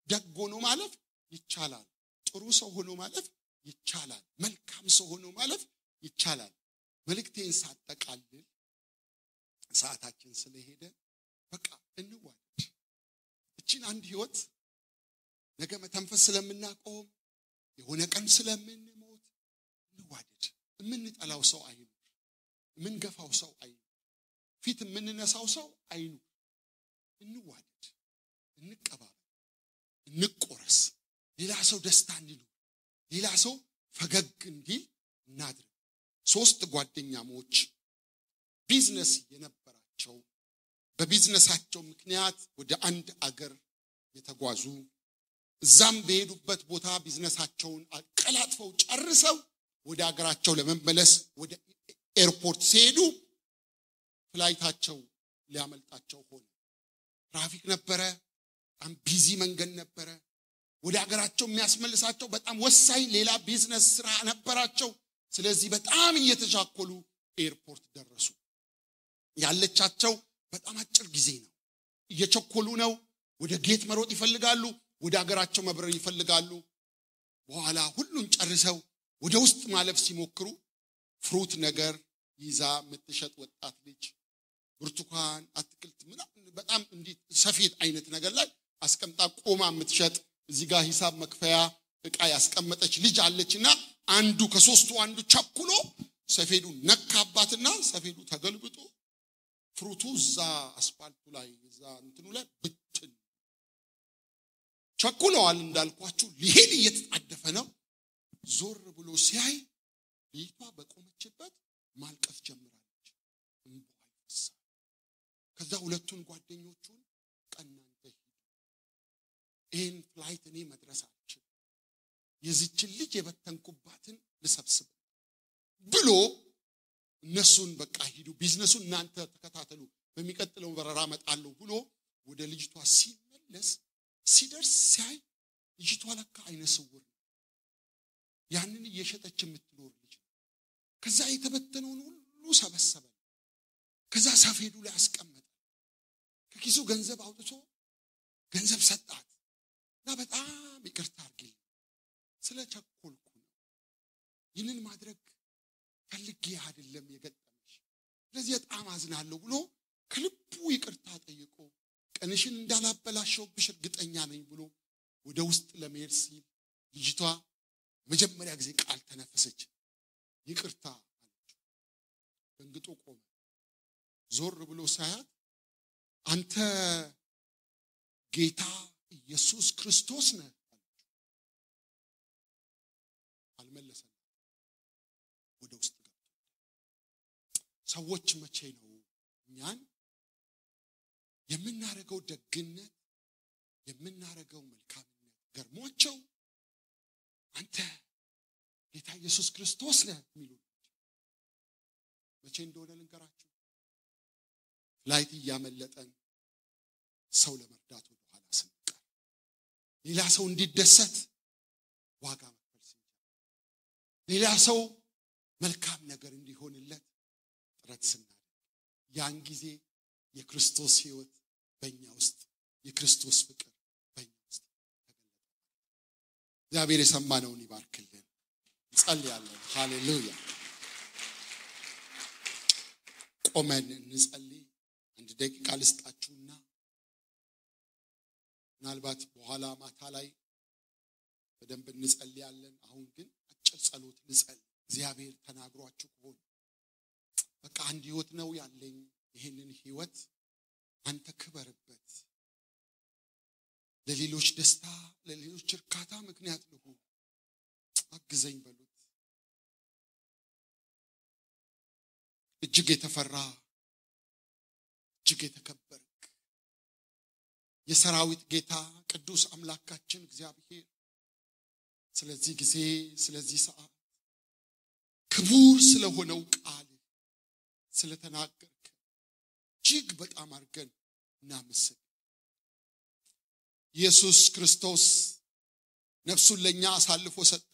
ደግ ሆኖ ማለፍ ይቻላል ጥሩ ሰው ሆኖ ማለፍ ይቻላል መልካም ሰው ሆኖ ማለፍ ይቻላል መልእክቴን ሳጠቃልል ሰዓታችን ስለሄደ በቃ እንዋደድ እቺን አንድ ህይወት ነገ መተንፈስ ስለምናቆም የሆነ ቀን ስለምንሞት እንዋደድ የምንጠላው ሰው አይኑ የምንገፋው ሰው አይኑ ፊት የምንነሳው ሰው አይኑ እንዋደድ እንቀባበል እንቆረስ ሌላ ሰው ደስታ እንዲሉ ሌላ ሰው ፈገግ እንዲል እናድርግ 3 ጓደኛሞች ቢዝነስ የነበራቸው በቢዝነሳቸው ምክንያት ወደ አንድ አገር የተጓዙ እዛም በሄዱበት ቦታ ቢዝነሳቸውን አቀላጥፈው ጨርሰው ወደ አገራቸው ለመመለስ ወደ ኤርፖርት ሲሄዱ ፍላይታቸው ሊያመልጣቸው ሆነ ትራፊክ ነበረ በጣም ቢዚ መንገድ ነበረ ወደ አገራቸው የሚያስመልሳቸው በጣም ወሳኝ ሌላ ቢዝነስ ስራ ነበራቸው ስለዚህ በጣም እየተጃኮሉ ኤርፖርት ደረሱ ያለቻቸው በጣም አጭር ጊዜ ነው እየቸኮሉ ነው ወደ ጌት መሮጥ ይፈልጋሉ ወደ ሀገራቸው መብረር ይፈልጋሉ በኋላ ሁሉን ጨርሰው ወደ ውስጥ ማለፍ ሲሞክሩ ፍሩት ነገር ይዛ የምትሸጥ ወጣት ልጅ ብርቱካን አትክልት ምናምን በጣም እንዲህ ሰፌድ አይነት ነገር ላይ አስቀምጣ ቆማ የምትሸጥ እዚህ ጋር ሂሳብ መክፈያ ዕቃ ያስቀመጠች ልጅ አለችና አንዱ ከሶስቱ አንዱ ቸኩሎ ሰፌዱ ነካባትና ሰፌዱ ተገልብጦ ፍሩቱ እዛ አስፋልቱ ላይ እዛ እንትኑ ላይ ብትን ቸኩለዋል እንዳልኳችሁ ሊሄድ እየተጣደፈ ነው ዞር ብሎ ሲያይ ልጅቷ በቆመችበት ማልቀስ ጀምራለች እንባይፈሳ ከዛ ሁለቱን ጓደኞቹን ቀናንተ ይሄን ፍላይት እኔ መድረስ አልችልም የዚችን ልጅ የበተንኩባትን ልሰብስብ ብሎ እነሱን በቃ ሂዱ ቢዝነሱን እናንተ ተከታተሉ በሚቀጥለው በረራ መጣለው ብሎ ወደ ልጅቷ ሲመለስ ሲደርስ ሲያይ ልጅቷ ለካ አይነ ስውር ያንን እየሸጠች የምትኖር ልጅ ከዛ የተበተነውን ሁሉ ሰበሰበ ከዛ ሰፌዱ ላይ አስቀመጠ ከኪሱ ገንዘብ አውጥቶ ገንዘብ ሰጣት እና በጣም ይቅርታ አድርጊልኝ ስለቸኮልኩ ነው ይህንን ማድረግ ፈልጌ አይደለም የገጠመሽ ስለዚህ በጣም አዝናለሁ ብሎ ከልቡ ይቅርታ ጠይቆ ቀንሽን እንዳላበላሽብሽ እርግጠኛ ነኝ ብሎ ወደ ውስጥ ለመሄድ ሲል ልጅቷ መጀመሪያ ጊዜ ቃል ተነፈሰች ይቅርታ አለች ደንግጦ ቆመ ዞር ብሎ ሳያት አንተ ጌታ ኢየሱስ ክርስቶስ ነህ አልመለሰም ወደ ውስጥ ገብቶ ሰዎች መቼ ነው እኛን የምናረገው ደግነት የምናረገው መልካምነት ገርሟቸው አንተ ጌታ ኢየሱስ ክርስቶስ ነህ የሚሉ መቼ እንደሆነ ልንገራችሁ ላይት ያመለጠን ሰው ለመርዳት ወደ ኋላ ስንቀር ሌላ ሰው እንዲደሰት ዋጋ መክፈል ሲጀምር ሌላ ሰው መልካም ነገር እንዲሆንለት ጥረት ስናደርግ ያን ጊዜ የክርስቶስ ሕይወት በእኛ ውስጥ የክርስቶስ ፍቅር በእኛ ውስጥ ተገለጠ እግዚአብሔር የሰማነውን ይባርክልን እንጸልያለን ሃሌሉያ ቆመን እንጸልይ አንድ ደቂቃ ልስጣችሁና ምናልባት በኋላ ማታ ላይ በደንብ እንጸልያለን አሁን ግን አጭር ጸሎት ልጸልይ እግዚአብሔር ተናግሯችሁ ከሆነ በቃ አንድ ሕይወት ነው ያለኝ ይሄንን ሕይወት አንተ ክበርበት ለሌሎች ደስታ ለሌሎች እርካታ ምክንያት ልሁን አግዘኝ በሉት እጅግ የተፈራ እጅግ የተከበርክ የሰራዊት ጌታ ቅዱስ አምላካችን እግዚአብሔር ስለዚህ ጊዜ ስለዚህ ሰዓት ክቡር ስለሆነው ቃል ስለተናገርክ እጅግ በጣም አርገን እናመሰግናለን ኢየሱስ ክርስቶስ ነፍሱን ለኛ አሳልፎ ሰጠ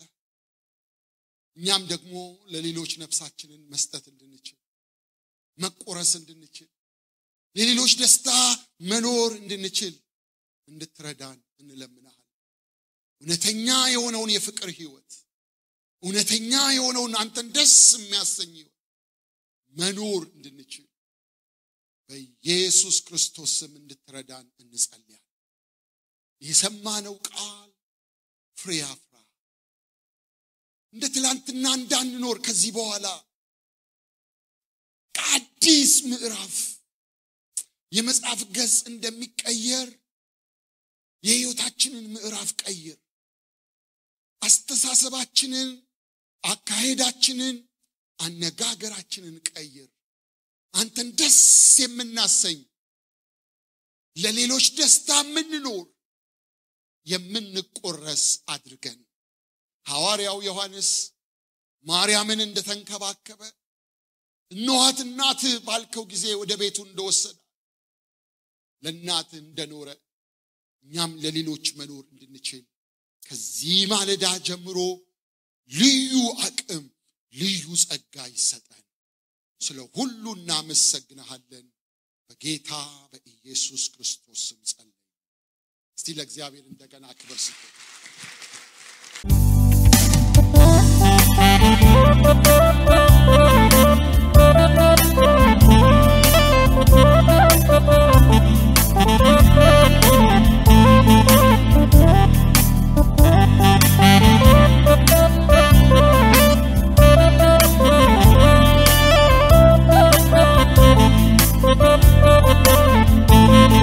እኛም ደግሞ ለሌሎች ነፍሳችንን መስጠት እንድንችል መቆረስ እንድንችል ለሌሎች ደስታ መኖር እንድንችል እንድትረዳን እንለምናለን እውነተኛ የሆነውን የፍቅር ሕይወት እውነተኛ የሆነውን አንተን ደስ የሚያሰኝ ሕይወት መኖር እንድንችል በኢየሱስ ክርስቶስ ስም እንድትረዳን እንጸልያለን የሰማነው ቃል ፍሬ ያፍራ እንደ ትላንትና እንዳንኖር ከዚህ በኋላ አዲስ ምዕራፍ የመጽሐፍ ገጽ እንደሚቀየር የሕይወታችንን ምዕራፍ ቀይር አስተሳሰባችንን አካሄዳችንን አነጋገራችንን ቀይር አንተን ደስ የምናሰኝ ለሌሎች ደስታ የምንኖር የምንቆረስ አድርገን ሐዋርያው ዮሐንስ ማርያምን እንደተንከባከበ እነኋት እናትህ ባልከው ጊዜ ወደ ቤቱ እንደወሰደ ለእናትህ እንደኖረ እኛም ለሌሎች መኖር እንድንችል ከዚህ ማለዳ ጀምሮ ልዩ አቅም ልዩ ጸጋ ይሰጠን ስለ ሁሉ እናመሰግንሃለን በጌታ በኢየሱስ ክርስቶስ ስም ጸልይ እስቲ ለእግዚአብሔር እንደገና ክብር ስጡ።